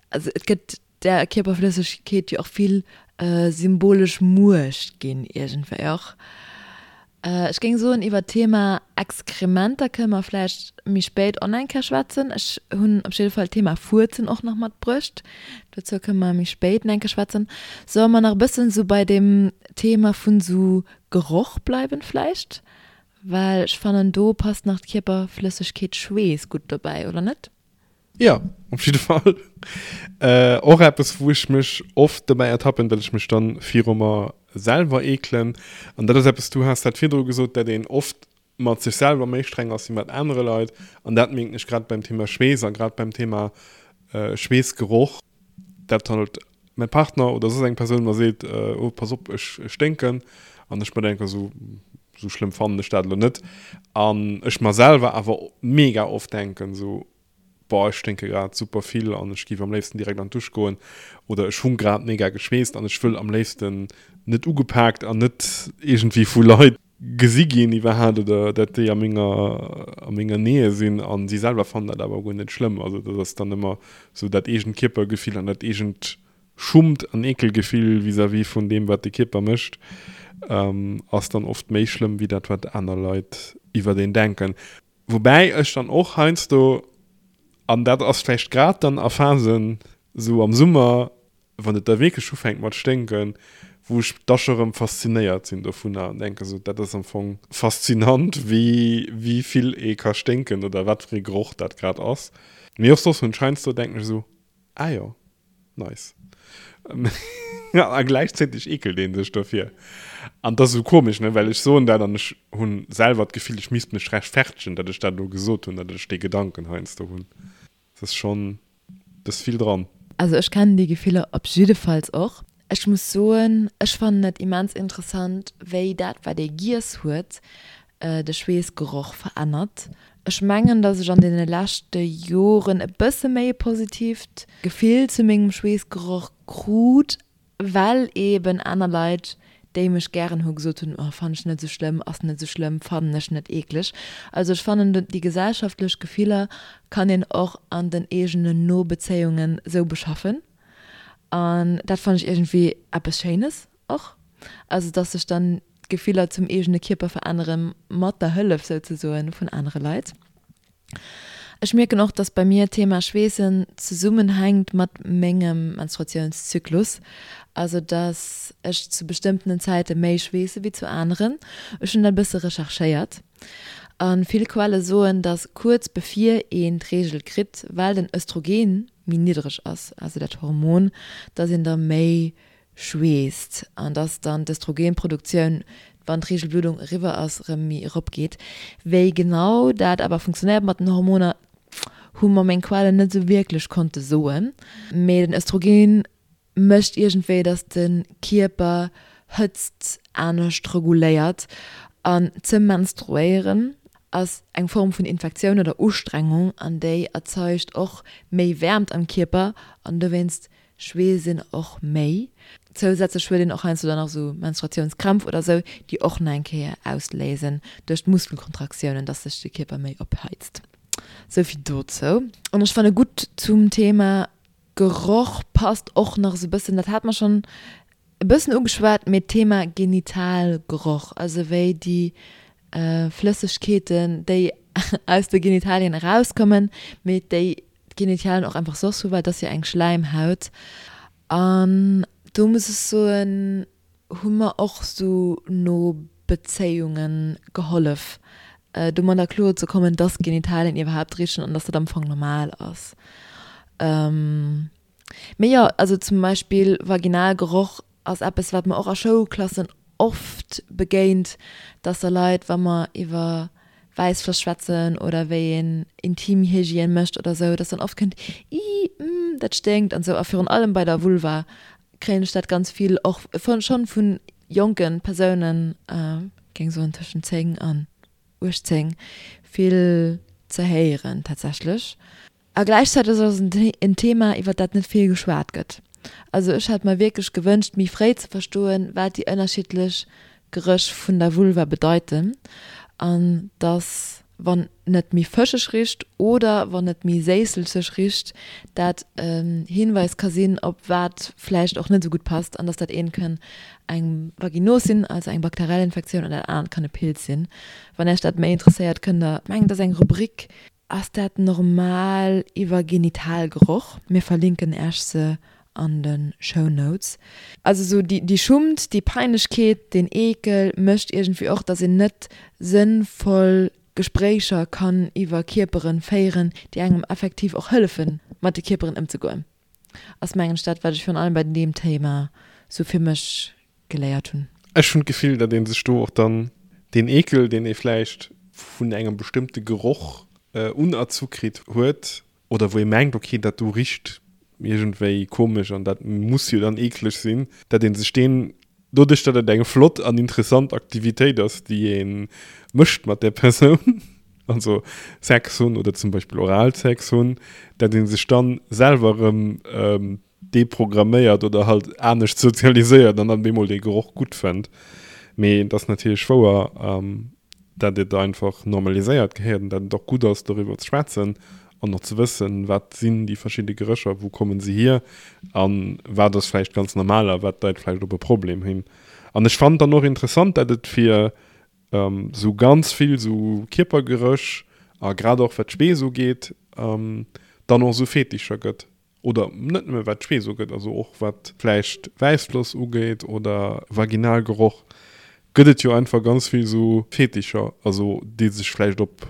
Also et gëtt där Kierperflëssegkeet jo och vill symbolesch Muecht ginn iergendwéi och. Ech géing soen, iwwer d'Thema Exkrementer kënne mer vläicht méi spéit och nach eng Kéier schwätzen. Ech hunn op jidde Fall d'Thema Fuerzen och nach matbruecht. Dozou kënne mer méi spéit nach eng Kéier schwätzen. Solle mer nach e bëssen esou bei deem Thema vun esou Geroch bleiwen vläicht? Well ech fannen, do passt nach d'Kierperflëssegkeet Schweess gutt dobäi, oder net? Jo, op jidde Fall. Och eppes, wou ech mech oft dobäi ertappen, datt ech mech dann viru mer selwer eekelen. An dat ass eppes, du has dat virdru gesot, datt een oft mat sech selwer méi streng ass wéi mat anere Leit. An dat mierken ech grad beim Thema Schweess a grad beim Thema Schweessgeroch, dat halt mäi Partner oder soss eng Persoun mer seet, oh pass op, ech sténken. An ech mer denken, esou esou schlëmm fannen ech dat elo net. An ech mer selwer awer mega oft denken, esou, boah, ech sténke grad super vill an ech géif am léifsten direkt an d'Dusch goen oder ech hu grad mega geschweesst an ech wëll am léifsten net ugepaakt an net iergendwéi vu Leit gesi ginn iwwerhaapt oder dat déi a menger a menger Nähe sinn an si selwer fannen dat awer guer net schlëmm. Also dat ass dann ëmmer sou dat eegent Kierpergefill an dat eegent Schummt an Eekelgefill vis-à-vis vun deem wat de Kierper mécht ass dann oft méi schlëmm wéi dat wat aner Leit iwwert een denken. Woubäi ech dann och heiansdo, an dat ass vläicht grad dann a Phasen sou am Summer, wann et da wierklech ufänkt mat sténken, wou ech da scho rëm faszinéiert sinn dovunner an denke sou, dat ass am Fong faszinant, wéi wéi vill ee ka sténken oder wat fir ee Geroch dat grad ass. Mee och soss hunn ech heiansdo, denken ech esou, ah jo, nice. A gläichzäiteg eekelt ee sech dofir. An dat ass esou komesch, ne, well ech soen dat an ech hu selwer d'Gefill, ech misst mech rechtfertegen, datt ech dat elo gesot hunn, datt ech dee Gedanken heiansdo hunn. Et ass schonn, et ass vill dran. Also ech kennen déi Gefiller op jiddefalls och. Ech muss soen, ech fannen et immens interessant, wéi dat wat ee giess huet, de Schweessgeroch verännert. Ech mengen, dass ech an deene leschte Joren e bësse méi e positiivt Gefill zu mengem Schweessgeroch krut, Well eben aner Leit, déi mech gären hu gesot hunn, oh fannen ech net esou schlëmm, ass net esou schlëmm, fannen ech net eekleg. Also ech fannen déi gesellschaftlech Gefiller kann een och an den eegenen No-Bezéiungen esou beschaffen an dat fannen ech iergendwéi eppes Schéines och. Also dass sech dann d'Gefiller zum eegene Kierper verännere mat der Hëllef souzesoen vun anere Leit. Ech mierken och, dass bei mir d'Thema Schweessen zesummenhänkt mat mengem Menstruatiounszyklus, also dass ech zu bestëmmtenen Zäite méi schweesse wéi zu aneren. Ech hunn dat e bësse recherchéiert a vill Quelle soen, dass kuerz bevir een d'Reegel kritt, well den Östrogen méi niddreg ass, also dat Hormon, dass een da méi schweesst an dass dann d'Östrogenproduktioun, wann d'Reegelbluddung eriwwer ass, erëm méi eropgeet. Wéi genau dat awer funktionéiert mat den Hormoner, hu mer meng Quellen net esou wierklech konnte soen. Mee den Östrogen mécht iergendwéi, dass de Kierper Hëtzt anescht reguléiert an ze menstruéieren ass eng Form vun Infektioun oder Ustrengung an déi erzeugt och méi Wäermt am Kierper an dowéinst schweesst een och méi. Zousätzlech huet een och heiansdo dann nach esou Menstruatiounskrämpf oder esou, déi och nach eng Kéier ausléisen duerch d'Muskelkontraktiounen, dass sech de Kierper méi opheizt. Souvill dozou. An ech fanne gutt zum Thema Geroch passt och nach esou e bëssen, dat hat mer schonn e bëssen ugeschwat, mee d'Thema Genitalgeroch, also wéi déi Flëssegkeeten, déi aus de Genitalien erauskommen, mee déi d'Genitalien och einfach soss hu, well et ass jo eng Schläimhaut. An do muss ech soen, hu mer och sou no Bezéiunge gehollef, domadder kloer ze kommen, dass Genitalien iwwerhaapt richen an dass dat am Fong normal ass. Mee jo, also zum Beispill Vaginalgeroch ass eppes, wat mer och a Schoulklassen oft begéint, dass da Leit, wa mer iwwer Wäissfloss schwätzen oder wéi een Intimhygiène mécht oder sou, dass dann oft kënnt, Ih, mm, dat sténkt an sou. A virun allem bei der Vulva kréien ech dat ganz vill och schonn vu jonke Persounen, géing soen tëschent 10 an 18, vill ze héieren tatsächlech. A gläichzäiteg ass et en Thema, iwwer dat net vill geschwat gëtt. Also ech hätt mer wierklech gewënscht, méi fréi ze verstoen, wat déi ënnerschiddlech Geréch vun der Vulva bedeiten an dass, wann et méi fëscheg richt oder wann et méi séisselzeg richt, dat en Hinweis ka sinn, op wat vläicht och net esou gutt passt an dass dat eent kann eng Vaginos sinn, also eng bakteriell Infektioun, an dat anert kann e Pilz sinn. Wann Iech dat méi interesséiert, kënnt der, mengen et ass eng Rubrik, Ass dat normal iwwer Genitalgeroch? Mir verlinken Äech se an de Show Notes. Also sou déi Schummt, déi Peinlechkeet, deen Eekel mécht iergendwéi och, dass een net sënnvoll Gespréicher kann iwwer Kierperen féieren, déi engem effektiv och hëllefen, mat de Kierperen ëmzegoen. Ass mengen ech dat, wat ech virun allem bei deem Thema sou fir mech geléiert hunn. Ech hunn d'Gefill, datt ee sech do och dann deen Eekel, deen ee vläicht vun engem bestëmmte Geroch unerzu kritt huet oder wou ee mengt, ok, dat do richt iergendwéi komesch an dat muss jo dann eekleg sinn, datt ee sech deen, doduerch datt et eng flott an interessant Aktivitéit ass, déi ee mécht mat där Persoun, also Sex hunn oder zum Beispill Oralsex hunn, datt ee sech dann selwer erëm deprogramméiert oder halt anescht sozialiséiert an dann bemol dee Geroch gutt fënnt. Mee et ass natierlech wouer, dat et einfach normaliséiert gehéiert an dat et och gutt ass, doriwwer ze schwätzen an och ze wëssen, wat sinn déi verschidde Gerécher, wou komme se hier a wat ass vläicht ganz normal a wat deit vläicht op e Problem hin. An ech fannen dann och interessant, dat et fir esou ganz vill esou Kierpergeréch a grad och wat d'Schweess ugeet, dann och esou Fetischer gëtt. Oder net nëmme wat d'Schweess ugeet, also och wat vläicht Wäissfloss ugeet oder Vaginalgeroch, gëtt et jo einfach ganz vill esou Fetischer, also déi sech vläicht op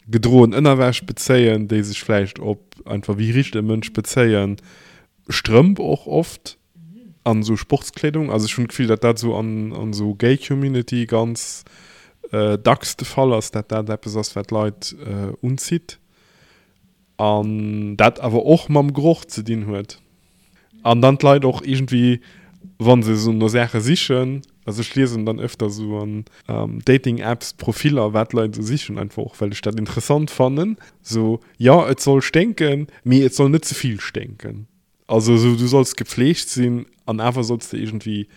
gedroen Ënnerwäsch bezéien, déi sech vläicht op einfach wéi richt e Mënsch bezéien, Strëmp och oft an esou Sportskleedung. Also ech hunn d'Gefill, datt dat esou an esou Gay Community ganz dacks de Fall ass, datt dat eppes ass, wat d'Leit unzitt. An dat awer och mam Geroch ze dinn huet. An dann d'Leit och iergendwéi, wa se esou no Saache sichen, also ech liesen dann öfter esou an Dating-Apps Profiller, wat d'Leit esou sichen, einfach och well ech dat interessant fannen, esou, jo et soll sténken, mee et soll net ze vill sténken. Also esou, du solls gepflegt sinn an awer solls de iergendwéi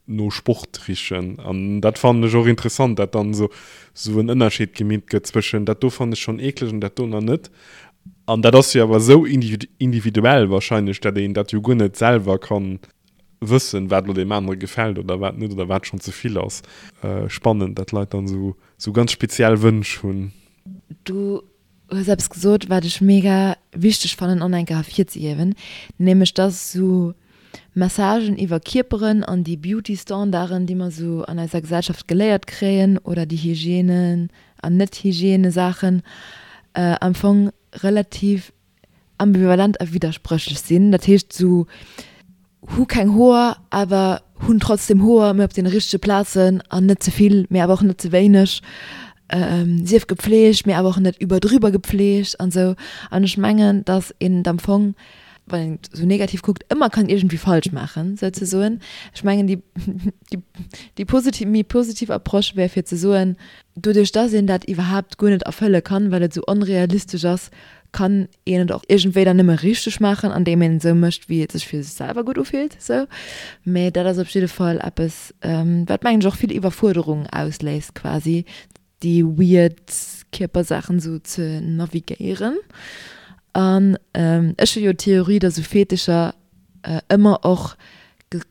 no Sport richen. An dat fannen ech och interessant, dat dann esou esou en Ënnerscheed gemeet gëtt zwëschen dat do fannen ech schonn eekleg an dat do nach net. An dat ass jo awer esou individuell wahrscheinlech, dat een dat jo guer net selwer kann wëssen, wat elo deem anere gefält oder wat net oder wat schonn ze vill ass. Spannend, dat Leit dann esou esou ganz speziell Wënsch hunn. Du hues eppes gesot, wat ech mega wichteg fannen an enker ervirzehiewen, nämlech dass esou Messagen iwwer Kierperen an déi Beauty-Standarden, déi mer esou an eiser Gesellschaft geléiert kréien, oder déi Hygiène an Net-Hygiène-Saachen, am Fong relativ ambivalent a widderspréchlech sinn. Dat heescht esou, hu keng Hoer, awer hunn trotzdem Hoer, mee op deene richtege Plazen an net ze vill, mee awer och net ze wéineg. Sief gepflegt, mee awer och net iwwerdriwwer gepflegt an esou. An ech mengen, dass een et am Fong, wann een et esou negativ kuckt, ëmmer kann iergendwéi falsch maachen, souzesoen. Ech mengen, déi, déi, déi positiv, méi positiv Approche wär fir ze soen, doduerch dass een dat iwwerhaapt guer net erfëlle kann, well et esou onrealistesch ass, kann een et och iergendwéi dann nëmme richteg maachen, andeem een et esou mécht, wéi et sech fir sech selwer gutt ufillt, esou. Mee dat ass op jidde Fall eppes, wat mengen ech och vill Iwwerfuerderung ausléist quasi, déi weird Kierpersaachen esou ze navigéieren. An ech hu jo d'Theorie, dass esou Fetischer ëmmer och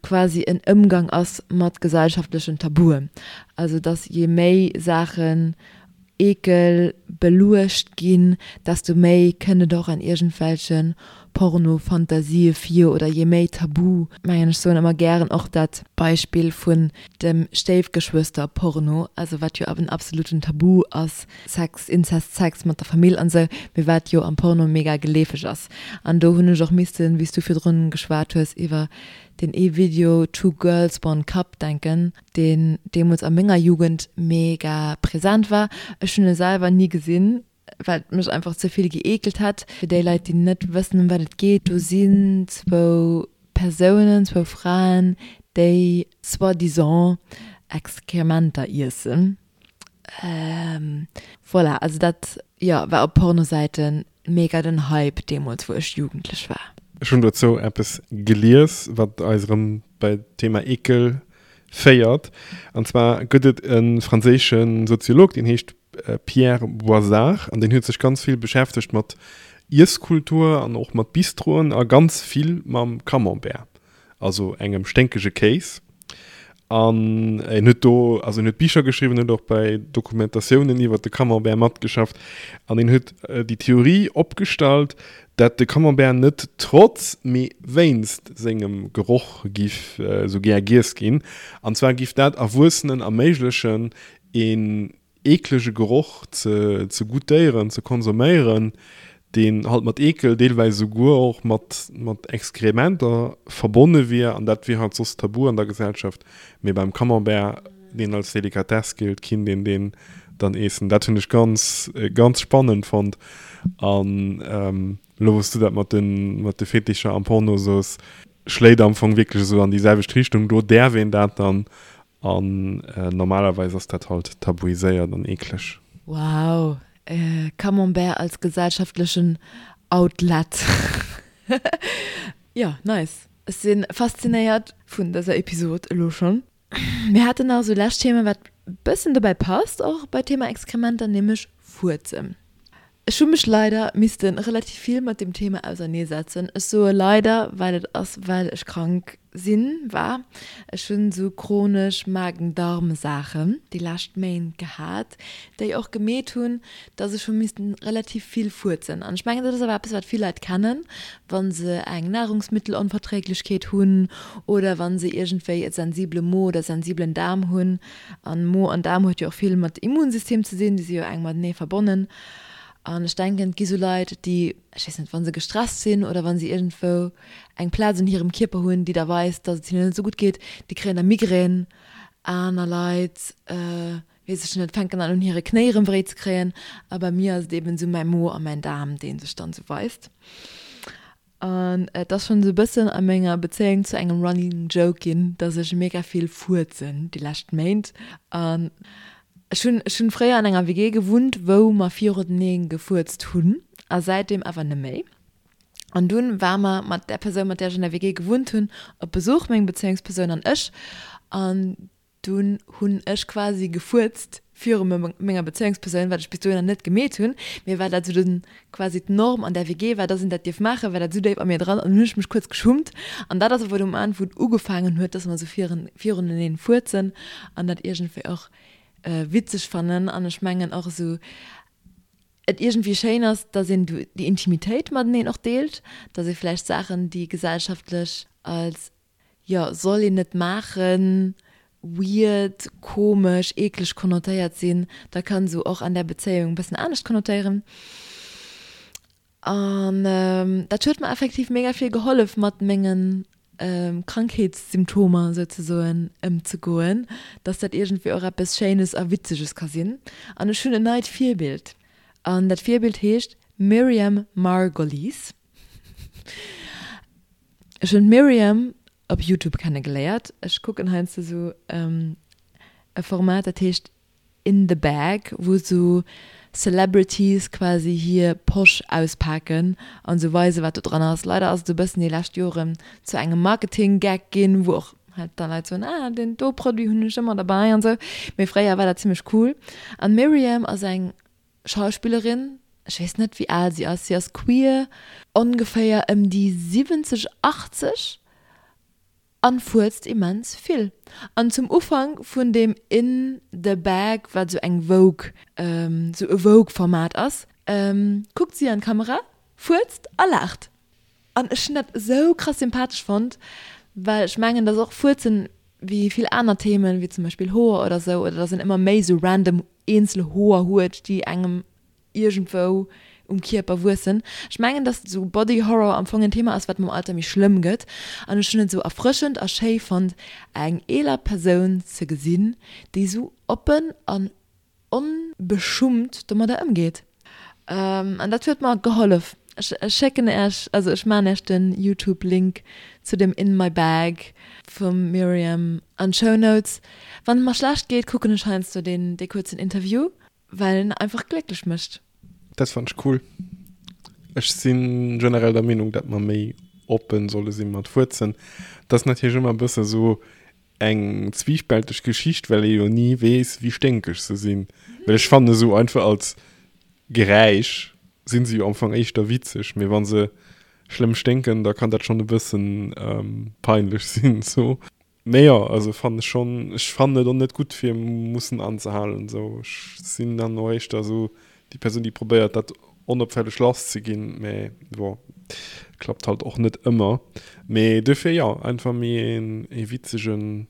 quasi en Ëmgang ass mat gesellschaftlechen Tabuen. Also dass je méi Saachen Eekel beluecht ginn, desto méi kënnt et och an iergendwelche Porno-Fantasië vir oder je méi tabu, mengen ech soen ëmmer gären och dat Beispill vun dem Stéifgeschwëster-Porno, also wat jo en absoluten Tabu ass, Sex, Inzest, Sex mat der Famill an esou, mee wat jo am Porno mega geleefeg ass. An do hunn ech och missten, wéi s du virdrun geschwat hues iwwer deen ee Video Two Girls One Cup denken, deen deemools a menger Jugend mega präsent war. Ech hunn e selwer ni gesinn, well et mech einfach ze vill gëeekelt hätt. Fir déi Leit, déi net wëssen, ëm wat et geet, do sinn zwou Persounen, zwou Fraen, déi soi-disant Exkrementer iessen. Voilà, also dat, jo, war op Pornosäiten mega den Hype deemools, wou ech jugendlech war. Ech hunn dozou eppes gelies, wat eis erëm bei d'Thema Eekel féiert. An zwar gëtt et e franséische Soziolog, deen heescht Pierre Boisard an deen huet sech ganz vill beschäftegt mat Iesskultur an och mat Bistroen a ganz vill mam Camembert. also engem sténkege Kéis. An en huet do, also en huet Bicher geschriwwen, huet och bei Dokumentatiounen iwwer de Camembert matgeschafft. An en huet déi Theorie opgestallt, dat de Camembert net trotz, mee wéinst sengem Geroch giff esou gär giess ginn. An zwar giff dat Erwuessenen erméiglechen, een eeklege Geroch ze ze goûtéieren, ze konsuméieren, deen halt mat Eekel, deelweis esouguer och mat mat Exkrementer verbonne wier, an dat wier halt soss tabu an der Gesellschaft, mee beim Camembert, deen als Delikatess gillt, kinnt een deen dann eessen. Dat hunn ech ganz ganz spannend fonnt. An elo wou s du dat mat de mat de Fetischer am Porno soos, schléit am Fong wierklech esou an déi selwecht Richtung, do däerf een dat dann An normalerweis ass dat halt tabuiséiert an eekleg. Wow, Camembert als gesellschaftlechen Outlet. Jo, nice. Ech si faszinéiert vun dëser Episod elo schonn. Mir haten nach esou lescht Thema, wat bëssen dobäi passt och bei Thema Exkrementer, nämlech Fuerzen. Ech hu mech leider missten relativ vill mat dem Thema auserneesetzen. Ech soe leider, well et ass well ech krank sinn, war. Ech hunn esou chronesch Magen-Darm-Saachen déi lescht Méint gehat, déi och gemeet hunn, dass ech hu missten relativ vill fuerzen. An ech mengen, dat ass awer eppes, wat vill Leit kennen, wa se eng Nahrungsmittelonverträglichkeet hunn oder wa se iergendwéi e sensibele Mo oder sensibelen Daarm hunn. An Mo an Daarm huet jo och vill mat Immunsystem ze sinn, déi si jo enk matenee verbonnen. An ech denken, et gi sou Leit, déi, ech weess net, wa se gestresst sinn oder wa se iergendwou eng Plaz un hirem Kierper hunn, déi da weist, datt et hinnen net esou gutt geet, déi kréien da Migrän. Aner Leit, weess ech net, fänken dann un hire Knéi erëm wéi ze kréien. A bei mir ass et eben esou mäi Mo a mäin Daarm, dee sech dann esou weist. An et ass schonn esou e bëssen a menger Bezéiung zu engem Running Joke ginn, dass ech mega vill fuerzen déi lescht Méint. An ech hunn, ech hunn fréier an enger WG gewunnt, wou mer virutenee gefuerzt hunn a säitdeem awer neméi. An dunn war mer mat där Persoun, mat där ech an der WG gewunnt hunn, op Besuch, meng Bezéiungspersoun an ech. An Dunn hunn ech quasi gefuerzt viru menger Bezéiungspersoun, wat ech bis dohinner net gemeet hunn, mee well dat esou den, quasi d'Norm an där WG war, dass een dat dierf maachen, war dat esou déif a mir dran an dunn hunn ech mech kuerz geschummt. An dat ass awer de Moment, wou et ugefaangen huet, dass mer esou viruneneen fuerzen an dat iergendwéi och witzeg fannen. An ech mengen och esou et iergendwéi schéin ass, dass een déi Intimitéit mateneen och deelt, dass ee vläicht Saachen, déi gesellschaftlech als jo, soll een net maachen, weird, komesch, eekleg konnotéiert sinn, da kann se och an där Bezéiung e bëssen anescht konnotéieren. An dat huet mer effektiv mega vill gehollef mat mengen. Krankheetssymptomer souzesoen ëmzegoen, dass dat iergendwéi och eppes Schéines a Witzeges ka sinn. An ech hunn en neit Virbild. An dat Virbild heescht Miriam Margolyes. Ech hunn d'Miriam op Youtube kennegeléiert. Ech kucken heiansdo sou e Format, dat heescht In the Bag, wou sou Celebrities quasi hir Posch auspaken an sou weisen, wat do dran ass. Leider ass et e bëssen déi lescht Joren zu engem Marketing-Gag ginn, wou och halt da Leit soen, ah, deen do Produit hunn ech ëmmer derbäi an sou. Mee fréier war dat zimmlech cool. An d'Miriam ass eng Schauspillerin, ech weess net, wéi al si ass, si ass queer, ongeféier ëm déi 70, 80. An fuerzt immens vill. An zum Ufank vun deem In the Bag, wat sou eng Vogue, sou e Vogue-Format ass, kuckt si an d'Kamera, fuerzt a laacht. An ech hunn dat esou krass sympathesch fonnt, well ech mengen, dass och Fuerzen, wéi vill aner Themen, wéi zum Beispill Hoer oder sou, oder dass een ëmmer méi sou random eenzel Hoer huet, déi engem iergendwou um Kierper wuessen. Ech mengen, dass esou Body Horror am Fong en Thema ass, wat mam Alter méi schlëmm gëtt. An ech hunn et esou erfrëschend a schéi fonnt, eng eeler Persoun ze gesinn, déi esou oppen an onbeschummt domadder ëmgeet. An dat huet mer gehollef. Ech schécken Äech, also ech maachen Äech den Youtube Link zu dem In My Bag vum Myriam an d'Show Notes. Wann et mer schlecht geet, kucken ech heiansdo deen, dee kuerzen Interview. Well en einfach glécklech mécht. Dat fannen ech cool. Ech sinn generell der Meenung, dat mer méi oppen solle sinn mat Fuerzen. Dat ass natierlech ëmmer e bësse sou eng zwiespälteg Geschicht, well ee jo ni weess, wéi sténkeg se sinn. Well ech fannen esou einfach als Geräisch sinn se jo am Fong éischter witzeg, mee wa se schlëmm sténken, da kann dat schonn e bëssen peinlech sinn sou. Mee jo, also fannen ech schon, ech fannen et och net gutt fir mussen anzehalen esou. Ech sinn dann och éischter esou déi Persoun déi probéiert dat onopfälleg lass ze ginn, mee bon, klappt halt och net ëmmer. Mee duerfir jo, einfach méi een ee witzegen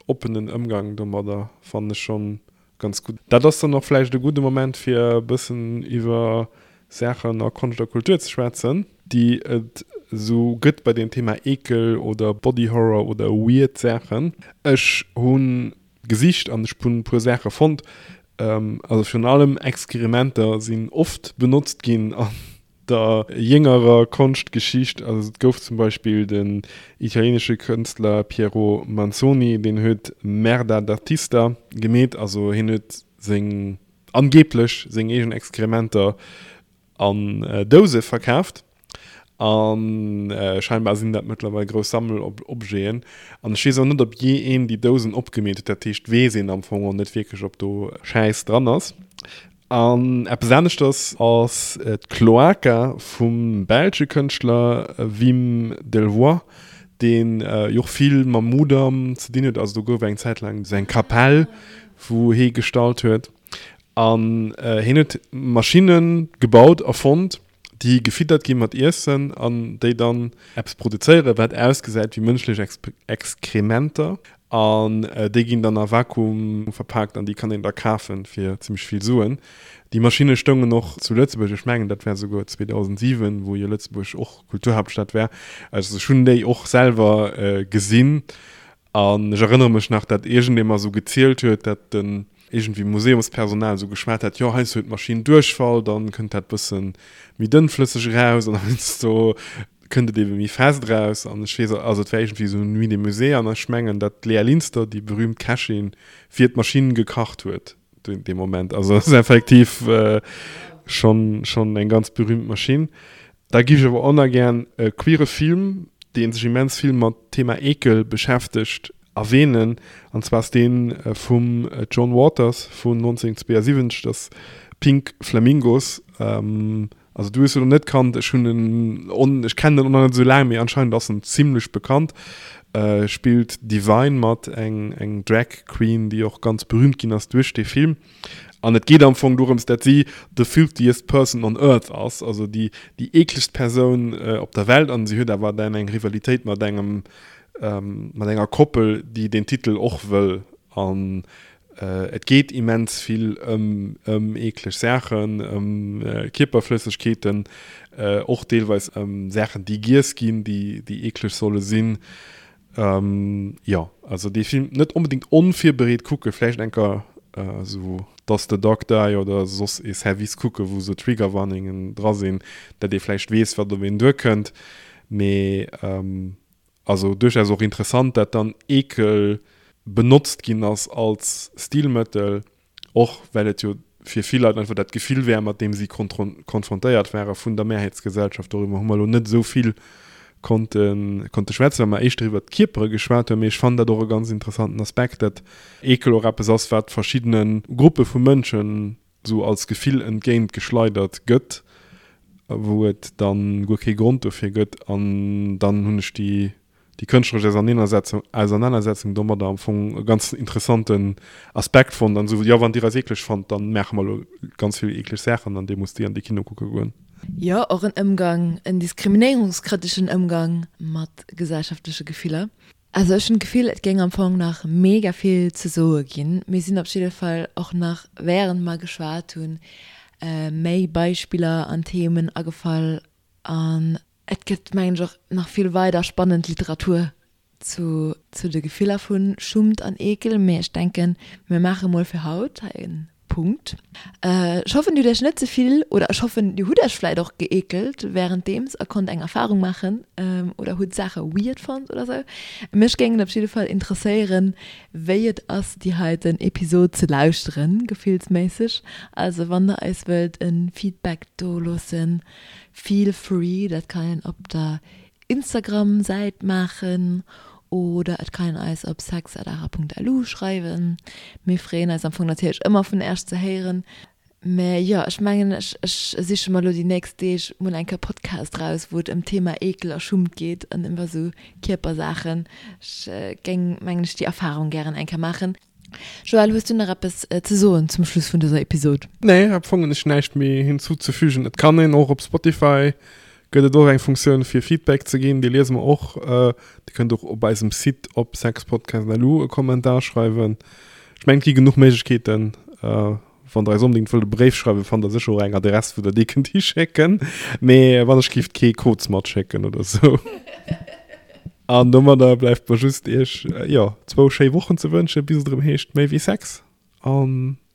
oppenen Ëmgang domadder fannen ech schon Ganz gutt. Dat ass dann och vläicht e gudde Moment fir e bëssen iwwer Saachen a Konscht a Kultur ze schwätzen, déi et esou gëtt bei deem Thema Eekel oder Body Horror oder weird Saachen. Ech hu gesicht an ech hunn e puer Saache fonnt. Also virun allem Exkrementer sinn oft benotzt ginn an der jéngerer Konschtgeschicht, also et gouf zum Beispill den italienesche Kënstler Piero Manzoni, deen huet Merda d'artista gemeet, also hien huet seng, angeeblech seng eegen Exkrementer an Douse verkaaft a scheinbar sinn dat mëttlerweil grouss Sammelobjeten an ech weess och net, ob jee een déi Dousen opgemeet huet, dat heescht weess een am Fong och net wierklech, ob do Schäiss dran ass. An eppes aneschters ass d'Cloaca vum belsche Kënschtler Wim Delvoye, dee jo och vill mam Mudam ze dinn huet. Also do gouf eng Zäit laang esou eng Kapell, wou hee gestallt huet. An hien huet Maschinne gebaut, erfonnt, déi gefiddert gi mat Iessen an déi dann eppes produzéieren, wat ausgesäit wéi mënschlech Exkrementer. An déi ginn dann a Vakuum verpaakt an déi kann een da kafe fir zimmlech vill Suen. Déi Maschinne stoungen och zu Lëtzebuerg, ech mengen dat war souguer 2007, wou jo Lëtzebuerg och Kulturhaaptstad war. Also ech hunn déi och selwer gesinn An ech erënnere mech nach, dat iergendee mer esou gezielt huet, dat den iergendwéi Museumspersonal esou geschwat hat, jo heiansdo huet d'Maschinn Duerchfall, dann kënnt dat bësse méi dënnflësseg eraus an heiansdo kënnt et ebe méi fest eraus. An ech weess, also et war iergendwéi esou Nuit des Musées an ech mengen, dat d'Léa Linster, déi berühmt Kächin, fir d'Maschinn gekacht huet dee Moment. Also ass effektiv schonn schonn eng ganz berühmt Maschinn. Da giff ech awer och nach gären e queere Film, dee sech immens vill mat Thema Eekel beschäftegt, erwähnen. An zwar ass dee vum John Waters vun 1972, dat ass Pink Flamingos. Also du hues en net kannt, ech hunn en on, ech kennen en och nach net esou laang, mee anscheinend ass en zimlech bekannt. Spillt Divine mat, eng eng Drag Queen, déi och ganz berühmt ginn ass duerch dee Film. An et geet am Fong dorëms, dat si the filthiest person on earth ass, also déi déi eeklegst Persoun op der Welt. An si huet awer dann eng Rivalitéit mat engem mat enger Koppel, déi deen Titel och wëll. An. Et geet immens vill ëm ëm eekleg Saachen, ëm Kierperflëssegkeeten, och deelweis ëm Saachen, déi giess ginn, déi déi eekleg solle sinn. Jo, also dee Film net onbedéngt onvirbereet kucken, vläicht eng Kéier esou Does the Dog Die oder soss ee Service kucken, wou esou Triggerwarningen dra sinn, dat ee vläicht weess, wat op een duerkënnt. Mee Also duerchaus och interessant, dat dann Eekel benotzt ginn ass als Stilmëttel, och well et jo fir vill Leit einfach dat Gefill wär, mat deem si konfrontéiert ware vun der Mehrheitsgesellschaft. Doriwwer hu mer elo net esou vill konnte konnte schwätzen, well mer éischter iwwert d'Kierpere geschwat hunn. Mee ech fannen dat och e ganz interessanten Aspekt, dat Eekel och eppes ass, wat verschiddene Gruppe vu Mënschen esou als Gefill entgéint geschleidert gëtt, wou et dann guer kee Grond dofir gëtt, an dann hunn ech déi déi kënschtleresch Auserneenersetzung Ausernanersetzung domadder am Fong e ganz interessanten Aspekt fonnt an esou, jo wann dir eis eekleg fannt, dann maache mer elo ganz vill eekleg Saachen an dir musst déi an de Kino kucke goen. Jo, och en Ëmgang, en diskriminéierungskritischen Ëmgang mat gesellschaftleche Gefiller. Also ech hunn d'Gefill et géing am Fong nach mega vill ze soe ginn. Mir sinn op jidde Fall och nach während mer geschwat hunn méi Beispiller an Themen agefall an et gëtt mengen ech och nach vill weider spannend Literatur zu zu de Gefiller vu Schummt an Eekel. Mee ech denken mir maache mol fir haut hei en Punkt. Ech hoffen dir hutt iech net ze vill, oder ech hoffen dir hutt iech vläit och geekelt währenddeems a konnt eng Erfahrung maachen oder hutt Saache weird fonnt oder sou. Mech géing et op jidde Fall interesséieren wéi et ass déi heiten Episod ze lauschteren, gefillsméisseg. Also wann der eis wëllt en Feedback do loossen, feel free, dat kann een op der Instagram Säit maachen oder et kann een eis op sex@ara.lu schreiwen. Mir freeën eis am Fong natierlech ëmmer vun Äerch ze héieren. Mä jo, ech mengen ech ech siche mer elo déi nächst Deeg mol eng Kéier Podcast raus wou et ëm d'Thema Eekel a Schummt geet an iwwer esou Kierpersaachen. Ech géing mengen ech déi Erfahrung gären eng Kéier maachen. Joël, hues du nach eppes ze soen zum Schluss vun dëser Episod? Nee, am Fong hunn ech näischt méi hinzuzefügen. Et kann een och op Spotify gëtt et och eng Funktioun fir Feedback ze ginn, déi liese mer och. Dir kënnt och op eisem Site op sexpodcast.lu e Kommentar schreiwen. Ech mengen et gi genuch Méiglechkeeten. Wann der eis onbedéngt wëllt e Bréif schreiwen, fannt der sécher och eng Adress, wou der dee kënnt hischécken. Mee wann ech gift kee Koz matschécken oder sou. An domadder bleift mer just iech, jo, zwou schéi Wochen ze wënschen, bis et erëm heescht Méi wéi Sex. A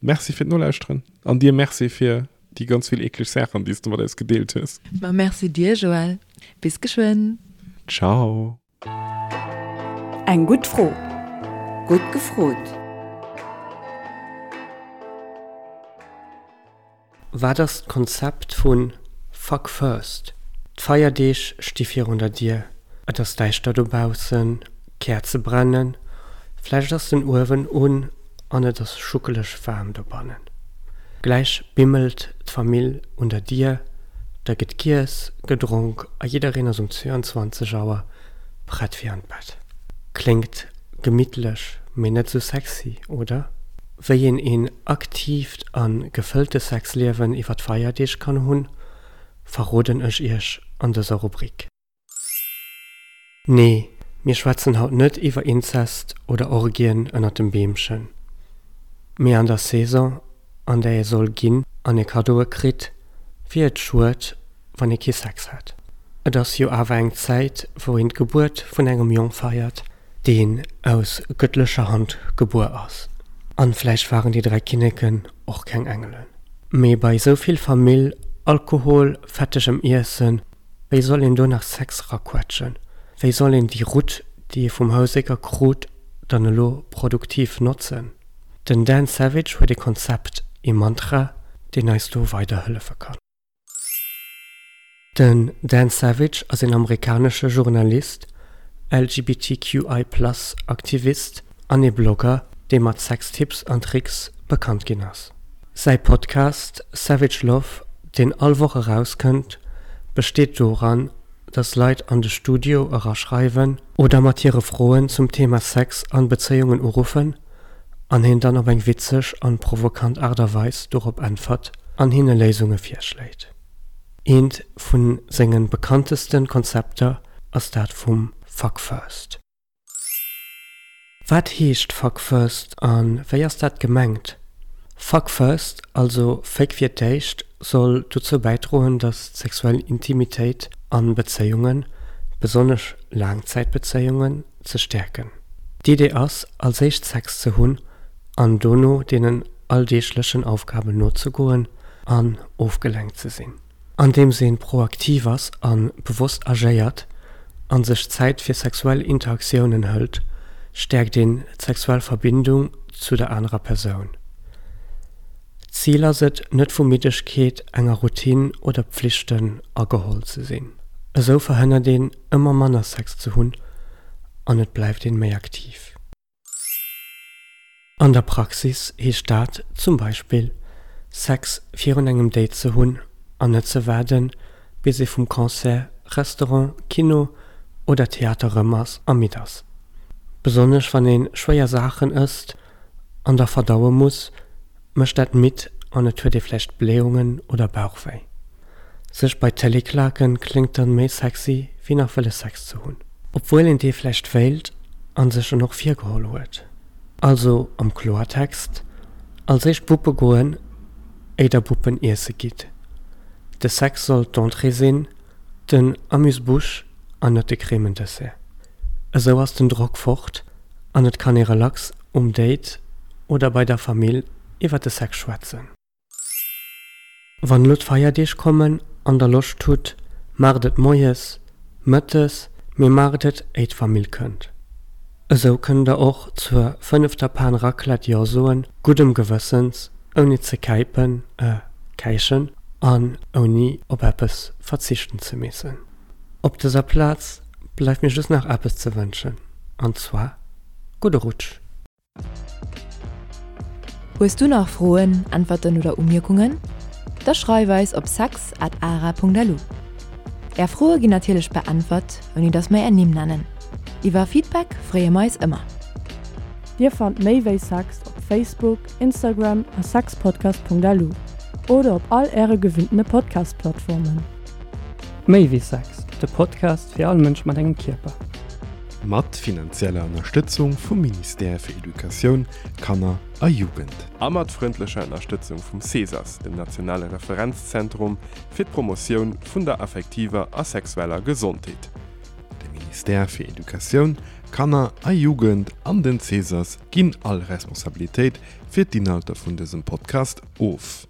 Merci fir d'Nolauschteren. An dir Merci fir déi ganz vill eekleg Saachen, déi s de mat eis gedeelt hues. Ma Merci dir, Joël. Bis geschwënn. Ciao. Eng gutt Fro. Gutt gefrot. Wat ass d'Konzept vu Fuck First? D'Feierdeeg sti virun der Dier, et ass däischter dobaussen, d'Käerze brennen, vläicht ass den Uewen un an et ass schuckeleg waarm dobannen. Gläich bimmelt d'Famill un der Dier, da gëtt giess, gedronk a jiddereen ass um 22 Auer prett fir an d'Bett. Kléngt gemittlech, mee net sou sexy, oder? Wéi een een aktiivt a gefëllte Sexliewen iwwer d'Feierdeeg kann hunn, verroden ech iech an dëser Rubrik. Nee, mir schwätzen haut net iwwer Inzest oder Orgien ënnert dem Beemchen. Mee an der Saison, an där ee soll ginn an ee Kaddoe kritt, wier et schued, wann ee kee Sex hätt. Et ass jo awer eng Zäit, wou een d'Gebuert vun engem Jong feiert, deen aus gëttlecher Hand gebuer ass. An vläicht waren déi 3 Kinneken och keng Engelen. Mee bei esou vill Famill, Alkohol, fettegem Iessen, Wéi soll een do nach Sex raquetschen? Wéi soll een déi Rutt, déi ee vum Housécker krut, dann elo produktiv notzen? Den Dan Savage huet ee Konzept, ee Mantra, deen eis do weiderhëllefe kann. Den Dan Savage ass een amerikanesche Journalist, LGBTQI plus Aktivist an ee Blogger, dee mat Sextipps an Tricks bekannt ginn ass. Säi Podcast Savage Love, deen all Woch erauskënnt, besteet doran, dass Leit an de Studio eraschreiwen oder mat hire Froen zum Thema Sex an Bezéiungen uruffen an hien dann op eng witzeg an provokant Aart a Weis dorop äntwert an hinne Léisunge virschléit. Eent vun sengen bekanntesten Konzepter ass dat vum Fuck First. Wat heescht Fuck First a wéi ass dat gemengt? Fuck First, also Féck fir d'éischt, soll dozou bäidroen, datt d'sexuell Intimitéit a Bezéiungen, besonnesch Laangzäitbezéiungen, ze stäerken. D'Idee ass, als éischt Sex ze hunn an dono deenen alldeeglechen Aufgaben nozegoen an ofgelenkt ze sinn. Andeems een proaktiv ass a bewosst agéiert an sech Zäit fir sexuell Interaktiounen hëlt, stäerkt een d'sexuell Verbindung zu der anerer Persoun. D'Zil ass et, net vu Middegkeet, enger Routine oder Pflichten ageholl ze sinn. Esou verhënnert een, ëmmer manner Sex ze hunn an et bleift een méi aktiv. An der Praxis heescht dat zum Beispill, Sex virun engem Date ze hunn an net ze waarden, bis ee vum Concert, Restaurant, Kino oder Theater rëm ass a midd ass. Besonnesch wann ee schwéier Saachen ësst an da verdaue muss, mécht dat midd an et huet ee vläicht Blähungen oder Bauchwéi. Sech bei d'Télé klaken kléngt dann méi sexy wéi nach wëlle Sex ze hunn. Obwuel een dee vläicht wéilt an sech en och virgeholl huet. Also am Kloertext, als éischt Buppe goen éi der Buppen iesse gitt. De Sex soll d'Entrée sinn, den Amuse-bouche an net de Cremendessert. Esou ass den Drock fort an et kann ee relax um Date oder bei der Famill iwwer de Sex schwätzen. Wann elo d'Feierdeeg kommen an der Loscht hutt, maacht et moies, mëttes, mee maacht et éi d'Famill kënnt. Esou kënnt der och zur fënnefter Pan Raclette Jo soen, guddem Gewëssens, ouni ze käipen, äh, käichen an ouni op eppes verzichten ze missen. Op dëser Plaz bleift mir just nach eppes ze wënschen, an zwar gudde Rutsch! Hues du nach Froen, Äntwerten oder Umierkungen? Da schreif eis op sex at ara.lu. Är Froe ginn natierlech beäntwert, ouni dass mer är Nimm nennen. Iwwer Feedback freeë mer eis ëmmer. Dir fannt méi wéi Sex op Facebook, Instagram a sexpodcast.lu oder op all äre gewinntene Podcast-Plattformen. Méi wéi Sex, de Podcast fir all Mënsch mat engem Kierper. Mat finanzieller Ënnerstëtzung vum Ministère fir Educatioun, Kanner a Jugend. A mat frëndlecher Ënnerstëtzung vum CESAS, dem nationale Referenzzentrum fir d'Promotioun vun der affektiver a sexueller Gesondheet. De Ministère fir Educatioun, Kanner a Jugend an den CESAS ginn all Responsabilitéit fir d'Inhalter vun dësem Podcast of.